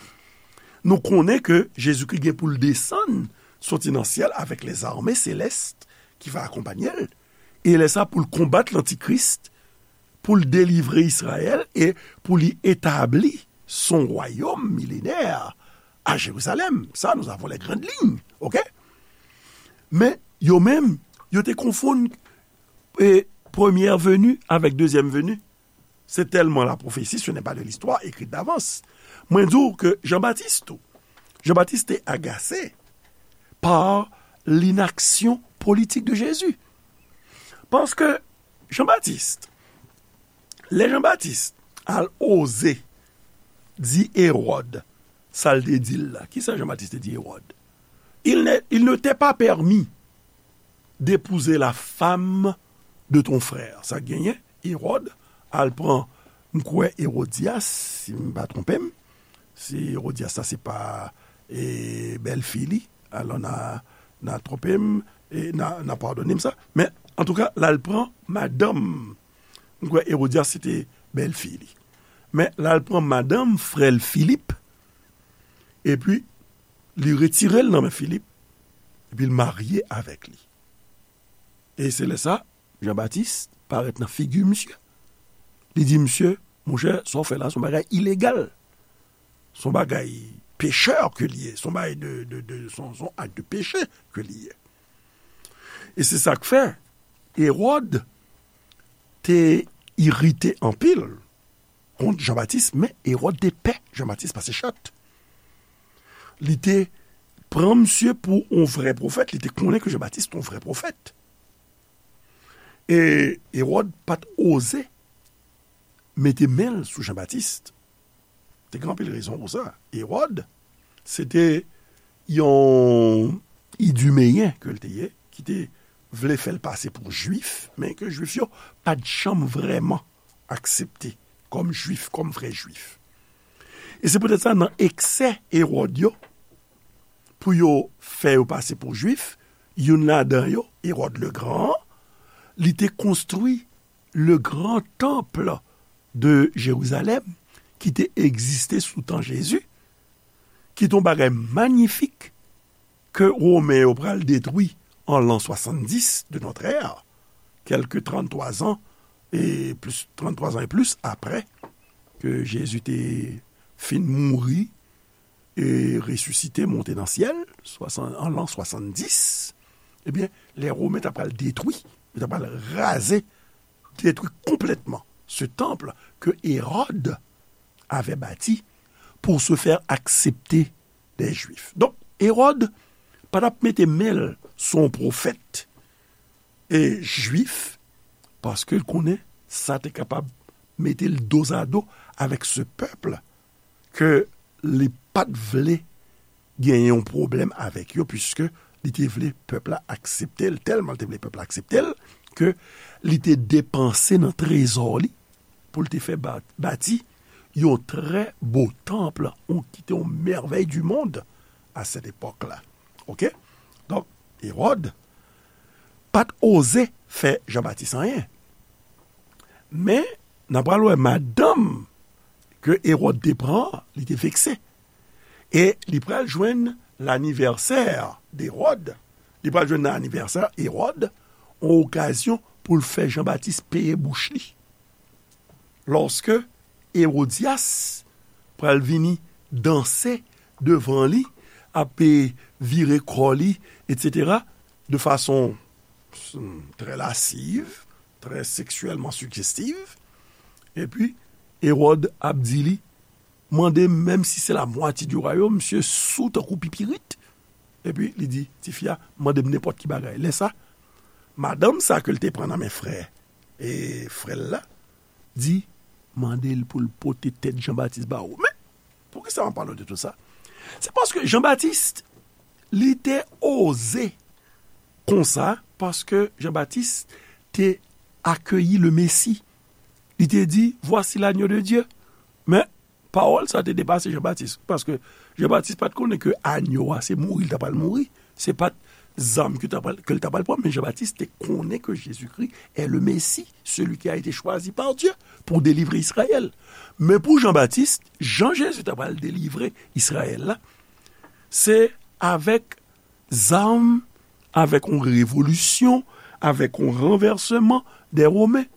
Nou konnen ke Jezikri gen pou l desann, soti nan syèl avèk lèzame selès ki va akonpanye l. E lè sa pou l konbat lantikris, pou l delivre Izrayèl e pou li etabli son wayòm milenè a Jerizalèm. Sa, nous avons les grandes lignes, ok? Men, yo menm, yo te konfonn e, première venue avec deuxième venue. C'est tellement la prophétie, ce n'est pas de l'histoire écrite d'avance. Mwen di w ke Jean-Baptiste tou, Jean-Baptiste te agase par l'inaction politique de Jésus. Paske Jean-Baptiste, lè Jean-Baptiste al oze di Hérode sa l te di l la, kisa Jean-Baptiste te di Hérode? Il ne, il ne t'est pas permis d'épouser la femme de ton frère. Sa genyen, Hérode al pran, m kwè, Hérodias, si m pa twonpe m, si Hérodias sa se pa e, bèlfi li, alò n a, n a twonpe m, e n a, n a padone m sa. Men, antouka, l al pran madanm, m kwè Hérodias se te bèlfi li. Men, l al pran madanm frè l Filip, epi li retire l nan men Filip, epi l marye avèk li. E se lè sa, Jean-Baptiste parèt nan figi misye. Li di misye, monchè, sa w fè la, se yon bagay ilegal. Se yon bagay pechè ke li ye. Se yon bagay de, de, de, se yon, se yon ak de peche ke li ye. E se sa k fè, Hérode te irite anpil kont Jean-Baptiste, men Hérode te pè Jean-Baptiste pase chat. Li te pran misye pou yon vrè pwofèt, li te konnen ke Jean-Baptiste te yon vrè pwofèt. E Hérode pa t oze mete men l sou Jean-Baptiste. Te gen anpil rezon pou sa. Hérode, se te yon idumeyen ke l te ye, ki te vle fè l pase pou Jwif, men ke Jwif yo pa t janm vrèman aksepte kòm Jwif, kòm vrè Jwif. E se poutèt sa, nan eksè Hérode yo, pou yo fè yo pase pou Jwif, youn ladan yo, Hérode le Grand, li te konstwi le grand temple de Jérusalem, ki te egziste sou tan Jezi, ki te yon bagay manyifik ke Women yo pral detwi an l'an soixante-dix de notre ère, kèlke trannntwa zan e plis, trannntwa zan e plis apre ke Jezi te fin mouri e resisite, monte nan syèl, swasann, an l'an soixante-dix, ebyen, lè Women ta pral detwi, yo ta pral raze, détruit complètement ce temple que Hérode avait bâti pour se faire accepter des Juifs. Donk, Hérode pa t ap mete men l sou yon pwofèt e jwif, paske l konnen sa te kapab mete l dozado avèk se pèp ke li pa t vle genyen yon pwoblèm avèk yo, piske li te vle pèp la aksepte l, tèlman l te vle pèp la aksepte l, ke li te depanse nan trezò li pou l te fè ba-, bati yon trè bo tanp, yon, ki te yon mèvèy di mond a sèt epòk la. Oke? Donk, Ewòd pa t oze fè Jan Batis anyen. Men, n a pral wè madanm ke Ewòd te pran, li te vekse. E li pral jwenn lanivèsè Ewòd, li pral jwenn nan anivèsè Ewòd, yon okazyon pou l fè Jan Batis peye bouch li. Lòske Ewodyas pral vini danse devan li, ap, e, vire kò li, etsetera, de fason, mm, trè lasiv, trè seksyèlman sijestiv, epi Ewòd ap di li, mande m, menm si se la mwatye di wayòm, misye sou tankou pipirit. Epi li di, tifi a, mande m nenpòt ki bagay. Lè sa, madanm sa ke l te pran nan men frè, e, frè l la, di, mande l pou l pote tèt Jan Batis ba ou. Men, poukisa m ap pale w de tout sa? Se paske Jan Batis, li te oze konsa, paske Jan Batis te akeyi le Mesi. Li te di, Voici l'agneau de Dieu. Men, pawòl sa te depase Jan Batis, paske Jan Batis pa t konnen ke anyo a se mouri l t apral mouri. Se pa t zam ke l t apral, ke l t apral pran, men Jan Batis te konnen ke Jezikri est le Messie, celui qui a été choisi par Dieu pour délivrer Israël. Men pou Jan Batis, jan Jezi t apral delivre Izrayèl la, se avèk zam, avèk yon revolisyon, avèk yon ranvèsman dè Women.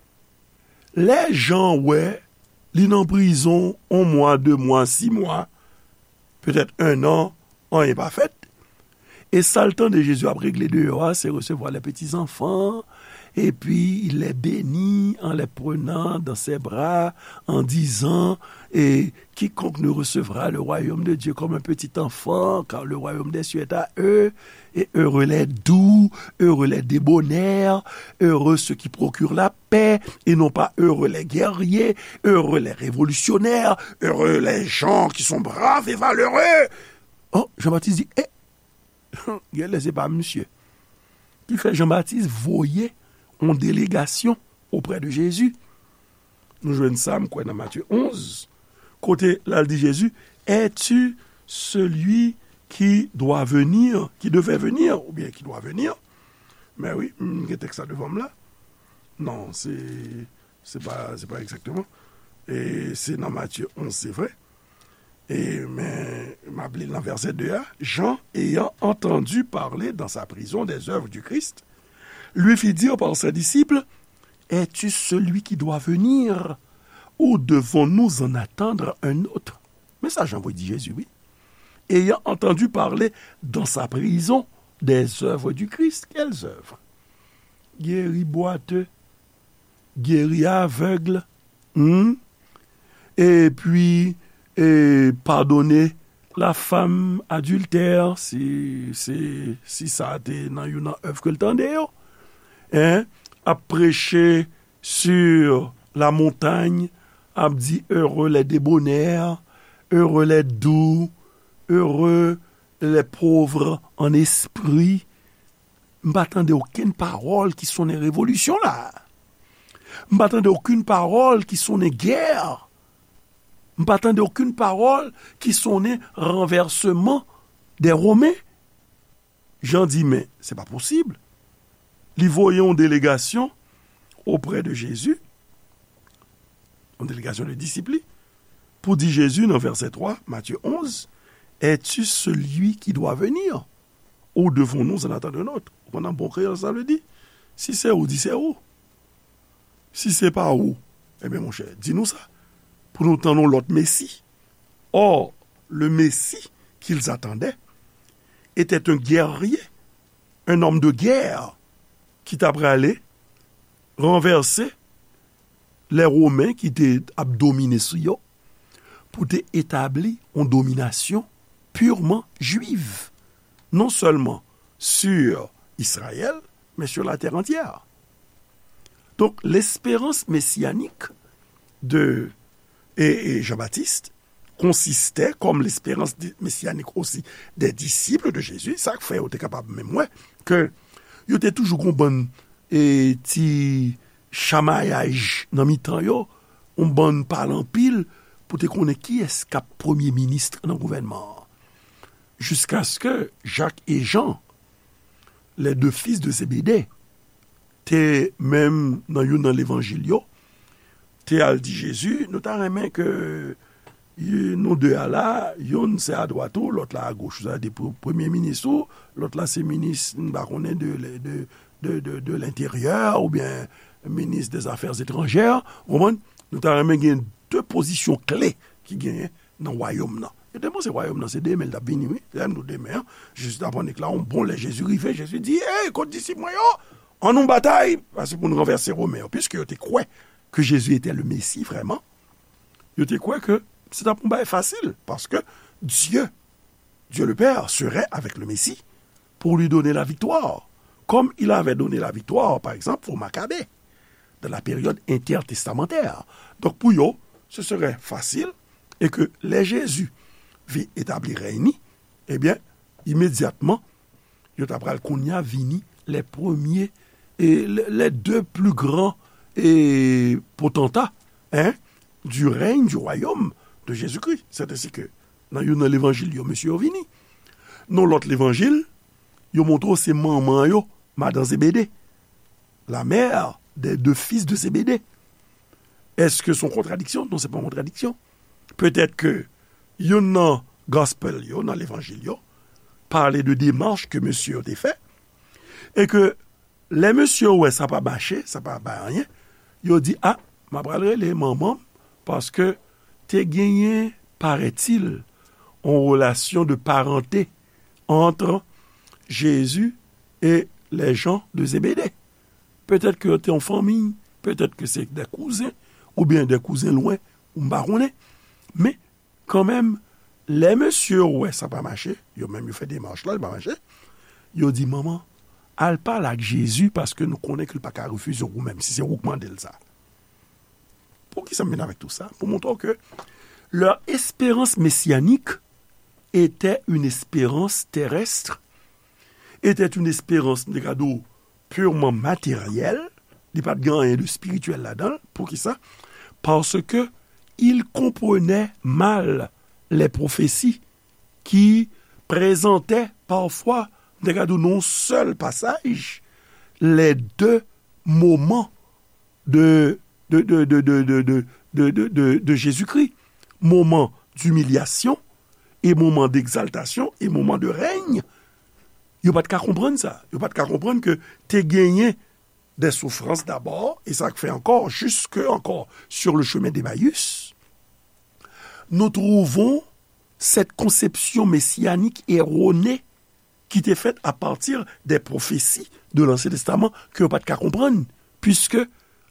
Lè Jan wè li nan prizon yon mwa, de mwa, sis mwa, petèt en an, anyen pa fèt. E sa l tande Jezi ap regle deyò a, se recevoir les petits enfants, et puis il les bénit en les prenant dans ses bras, en disant, et quiconque ne recevra le royaume de Dieu comme un petit enfant, car le royaume des cieux est à eux, et heureux les doux, heureux les débonnaires, heureux ceux qui procurent la paix, et non pas heureux les guerriers, heureux les révolutionnaires, heureux les gens qui sont braves et valeureux. Oh, Jean-Baptiste di, eh, genlè se pa misye. Ki fè Jan Batis voye yon delegasyon oprè de Jezi. Nou jwenn sa, m kwè, nan Matye onz, kote l al di Jezi, Es-tu celui qui doit venir, qui devait venir, oubyen qui doit venir? Men wi, m gen tèks la devan m la. Non, se, se pa, se pa egzakteman. E se nan Matye onz, se vre. E, men, m ap li l nan vèsè de a. Jean, ayant entendu parler dans sa prison des œuvres du Christ, lui fit dire par ses disciples, Es-tu celui qui doit venir, ou devons-nous en attendre un autre? Men sa Jan voye di Jezi, wi. Ayant entendu parler dans sa prison des œuvres du Christ. Quelles œuvres? Geri bwate, geri avèg, hmm? Epi, e, padone la femme adultère, si, si, si sa te nan youn nan èv ke l tande yo. Hein? Ap preche sur la montagne, ap di, heureux les débonnaires, heureux les doux, heureux les pauvres en esprit. M pa tande okenn pawòl ki sonnen revolisyon la. M pa tande okenn pawòl ki sonnen gè. M pa tande okenn pawòl ki sonnen ranvèsman dè Women. Jan di, men, se pa posib. Li voye yon delegasyon oprè de Jezi, yon delegasyon de disip li, pou di Jezi nan vèsè twa, Matye onz, Es-tu celui qui doit venir, ou devons-nous en attendre un autre? Ou konn an bon kreyòl sa vle di? Si se ou, di se ou. Si se pa ou, ebyen, monchè, di nou sa, pou nou tann yon lòt Mesi. Or, le Messie qu'ils attendaient était un guerrier, un homme de guerre, ki t ap prale ranvèse lè Women ki te ap domine sou yo, pou te etabli yon dominasyon purement juive, non seulement sur Israël, mais sur la terre entière. Donc, l'espérance messianique de, et, et Jean-Baptiste consistait, comme l'espérance di-, messianique aussi des disciples de Jésus, sa k fè yo te kapab menm wè ke yo te toujou gon bann, e, ti chamayaj nan mitan yo, yon bann pale anpil pou te konnen kiyès k ap premye minis nan gouvènman an. Jiskaske Jak e Jan, les deux fils de Zébédée, te menm nan youn nan levanjil yo, te al di Jezi, nou ta renmen ke, e, nou de a la, youn se adwat ou, lòt la agoch ou, sa vle di pou premye minis ou, lòt la se minis, m pa konnen, de, de, de, de, de lenteryè oubyen minis dè zafè etranjè, ou konprann? Nou ta renmen gen de pozisyon kle ki genyen nan wayòm nan. Yo te panse wayòm nan se demen l t ap vini, wi. Lè m di w demen an, Jezi t ap annik la, yon bon lè Jezi rive, Jezi di, Ey, kot disip mwen yo? Ann nou batay, paske pou n ranvèse Women yo. Piske yo te kwè ke Jezi etè le Mesi vrèman, yo te kwè ke se t ap yon bagay fasil, paske Dye, Dieu le Père serait avec le Messie pour lui donner la victoire, comme il avait donné la victoire, par exemple, aux Macabées, dans la période intertestamentaire. Donk, pou yo, se serè fasil, e ke lè Jezi vin etabli rèy ni, ebyen, imedyatman, yo ta pral kounye a vini les premiers, e les, les deux plus grands, e potanta, hein, du règne du royaume de Jésus-Christ. C'est ainsi que, nan youn nan levanjil yo, mesye yo vini. Nan lòt levanjil, yo montre w se manman yo, madan Zebede, la mère des deux fils de Zébédée. Èske se yon kontradiksyon? Non, se pa yon kontradiksyon. Petèt ke youn nan gospel yo, nan levanjil yo, pale de demach ke mesye yo te fè, e ke lè mesye yo wè sa pa mache, sa pa bay anyen, yo di, a, m ap al rele manman m, paske te genyen, paraît-il, yon relasyon de parenté entre Jésus et les gens de Zébédée. Petèt ke yo te yon fanmi, petèt ke se de kouzen, oubyen de kouzen lwen, ou m pa konnen. Men, kanmenm, lè mesye yo wè sa pa mache, yo menm yo fè demach la, li pa mache, yo di, manman, al pale ak Jezi, paske nou konnen ke l pa ka refize w ou menm, si se ou k mande l sa. Poukisa m vin avèk tou sa? Pou montre w ke leur espérance messianique était une espérance terrestre, était une espérance, m te ka di w, purement matérielle, li pa t gen anyen de spirityèl ladan l. Poukisa? Parce que il comprenait mal les prophéties qui présentait parfois, m te ka di w nan yon sèl pasaj, les deux moments de, de, de, de, de, de, de, de, de, de, de Jésus-Christ, moman d'humiliation, e moman d'exaltation, e moman de règne. Yo pa t ka konprann sa. Yo pa t ka konprann ke te genyen des souffrances d'abord, e sa k fè ankò, jusque ankò, sur le chemin d'Emmaüs, nous trouvons cette conception messianique erronée qui était faite à partir des prophéties de l'Ancien Testament que yo pa t ka konprann, puisque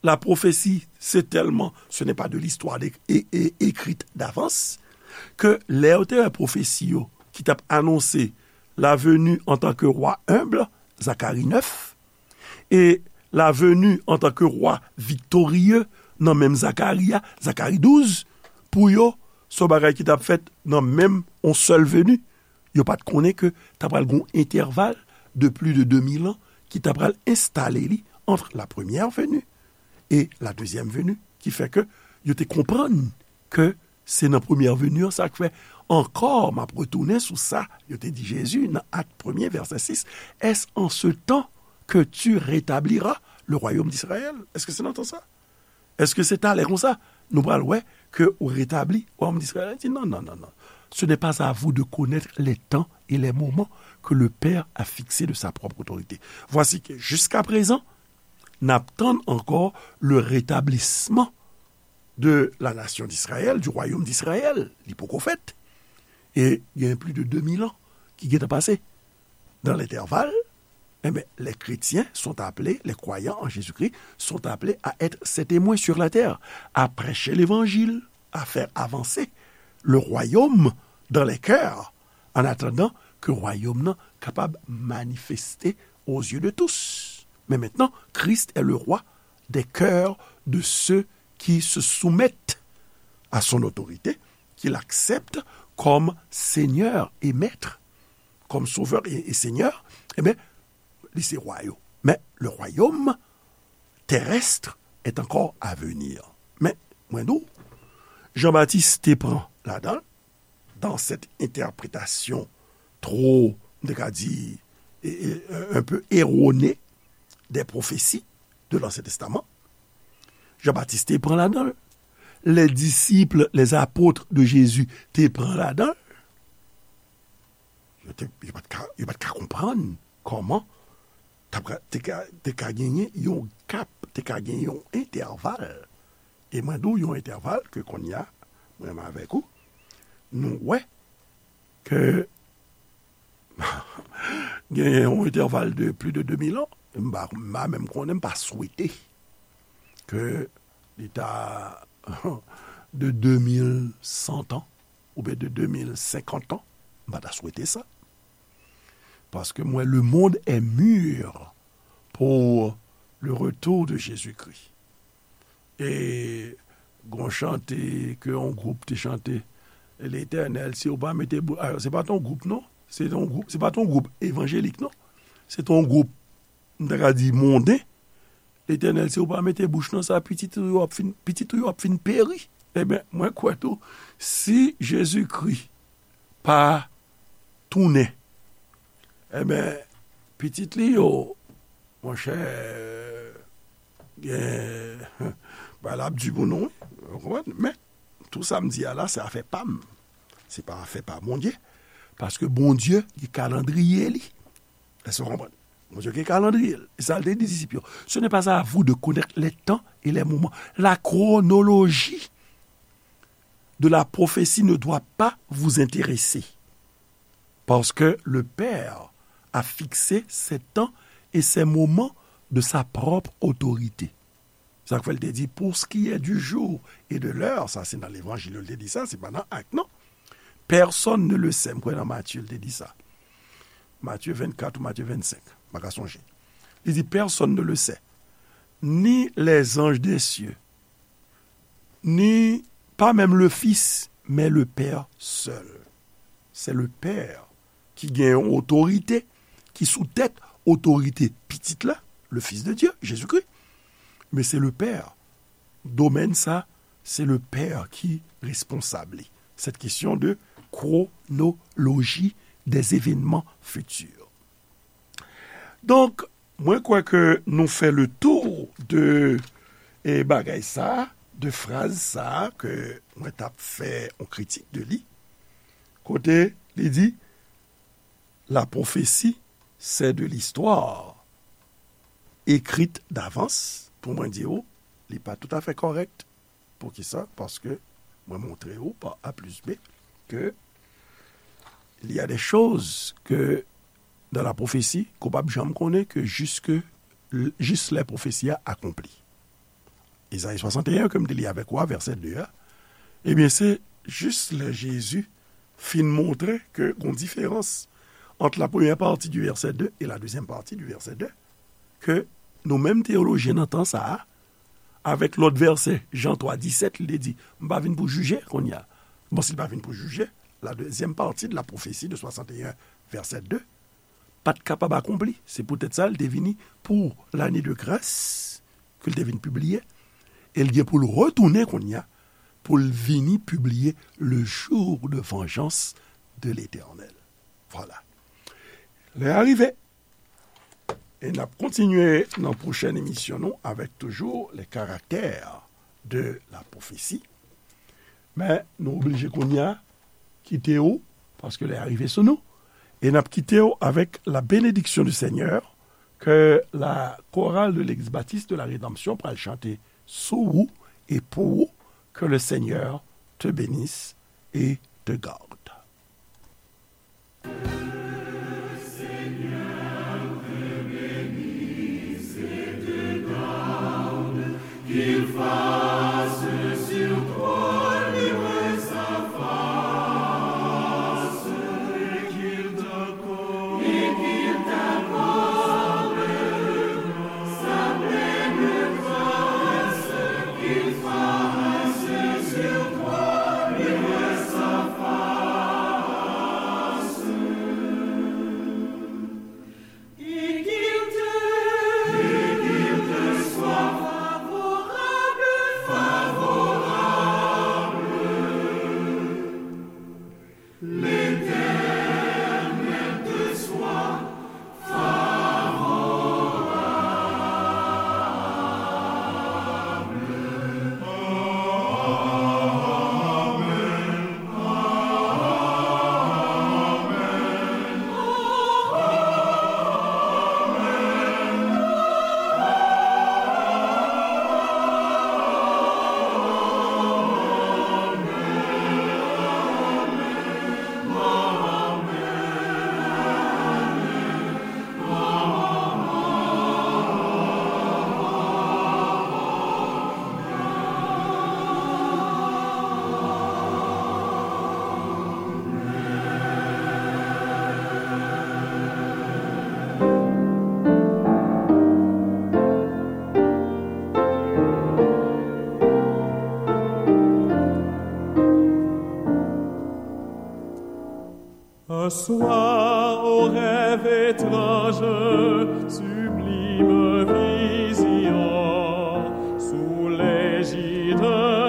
la prophétie, c'est tellement, ce n'est pas de l'histoire é-, é-, écrite d'avance, ke lè yo te wè pwofesi yo ki t ap anonse la venue en tant que roi humble, Zacharie neuf, e la venue en tant que roi victorieux nan menm Zakari a, Zakari douz, pou yo, se yon bagay ki t ap fèt nan menm yon sèl veni. Yo pa t konnen ke t ap pral gen yon entèval de plus de deux mille ans ki t ap pral enstale li entre la première venue et la deuxième venue, ki fè ke yo te konprann ke se nan premyè veni an, sa k fè ankò, m ap retounen sou sa yo te di Jezi nan Acte premier, verset six, est-ce en ce temps que tu rétabliras le royaume d'Israël? Èske se nan tan sa? Èske se talè konsa nou pral wè ke ou retabli wayòm d'Israël? Li di, non, non, non, non. Ce n'est pas à vous de connaître les temps et les moments que le Père a fixés de sa propre autorité. Voici que, jusqu'à présent, n ap tann ankò le rétablissement de la nation d'Israël, du royaume d'Israël. Li poko fèt. E gen plus de deux mille ans ki gentan pase. Dans l'intervalle, eh ben, les chrétiens sont appelés, les croyants en Jésus-Christ sont appelés à être ses témoins sur la terre, à prêcher l'évangile, à faire avancer le royaume dans les cœurs, en attendant que royaume nan kapab manifeste aux yeux de tous. Mais maintenant, Christ est le roi des cœurs de ceux qui se soumettent à son autorité, qu'il accepte comme Seigneur et Maître, comme Sauveur et, et Seigneur, eh bien, li se rwa yo. Mais le royaume terrestre est encore à venir. Men, mwen di w, Jean-Baptiste te pran ladan l, dans cette interprétation trop, m te ka di, e, e, un peu erronée des prophéties de l'Ancien Testament. Jean-Baptiste te pran ladan l. Les disciples, les apôtres de Jésus te pran ladan l. Yo te, yo pa t ka, yo pa t ka konprann kòman t ap ka, te ka, te ka genyen yon gap, te ka genyen yon entèval. E mwen di w yon entèval ke kounye a, mwen menm avèk ou, nou wè ke genyen yon entèval de plus de deux mille ans, m pa, m pa menm konnen, m pa swete ke li ta de deux mille cent ans, oubyen de deux mille cinquante ans, m pa ta swete sa. Paske m wè le monde est mûr pour le retour de Jésus-Christ. E gon chante ke yon gwoup te chante, Letènèl, si w pa mete bou-, a, se pa t yon gwoup, non. Se t yon gwoup, se pa t yon gwoup evanjelik, non. Se t yon gwoup, m ta ka di, monden, Letènèl, si w pa mete bouch nan sa, pitit ou yo ap fin, pitit ou yo ap fin peri. Ebyen, mwen kwè tou, si Jezikri pa tounen, ebyen, pitit li yo, monchè, gen, bagay la ap di pou nou, wi. Ou konprann? Men, tou sa m di a la, se afè pa m. Se pa afè pa Bondye. Paske Bondye gen kalandriye li. Èske w konprann? Bondye gen kalandriye l. E sa l te di disip yo. Ce n'est pas à vous de connaître les temps et les moments. La chronologie de la prophétie ne doit pas vous intéresser. Parce que le Père a fixé ces temps et ces moments de sa propre autorité. Sa k fè l te di, pour ce qui est du jour et de l'heure, sa se nan Levanjil yo l te di sa, se pa nan Ak, non. Personne ne le sait, m kwè nan Matye l te di sa. Matye vennkat ou Matye vennsenk, m pa ka sonje. Li di, personne ne le sait, ni les anges des cieux, ni, pas même le Fils, mais le Père seul. C'est le Père ki gen yon otorite, ki sou tèt otorite Pitit la, le Fils de Dieu, Jésus-Christ. Men se le Père. Domèn sa, se le Père ki responsab li. Cette question de chronologie des événements futurs. Donk, mwen kwè ke nou fè le tour de, e, bagay sa, de fraz sa ke mwen t ap fè yon kritik de li. Kote li di, la prophétie, c'est de l'histoire écrite d'avance. Pou mwen di w, li pa toutafè kòrèk. Poukisa? Paske mwen montre w pa A plis B ke il y a des choses que dans la prophétie ke w p ap janm konnen ke jiske, jis lè pwofesi a akonpli. Ezayi swasanteyen ke m te li avèk ou a, vèsè de a, ebyen, se jis lè Jezi fin montre ke gon diferans ant la premyè pati di vèsè de e la dezyèm pati di vèsè de, ke nou menm teyolojyen nan tan sa a, avèk lòt vèsè, Jan twa disèt, li te di, "M pa vin pou jije kounye a." Bon, si l pa vin pou jije, la dezyèm pati de la pwofesi de swasanteyen, vèsè de, pa t kapab akonpli. Se poutèt sa, l te vini pou lane de gras ke l te vin pibliye. E l gen pou l retounen kounye a, pou l vini pibliye le jour de vengeance de l'Éternel. Vwala. Lè a rive. E n ap kontinye nan pwochèn emisyon nou avèk toujou les caractères de la prophétie. Men nou oblije kounye a kite w, paske lè a rive sou nou. E n ap kite w avèk la bénédiction du Seigneur ke la chorale de l'église baptiste de la rédemption pral chante sou ou e pou ou. Que le Seigneur te bénisse et te garde. Un soir, au rêve étrange, sublime Vision sous l'égide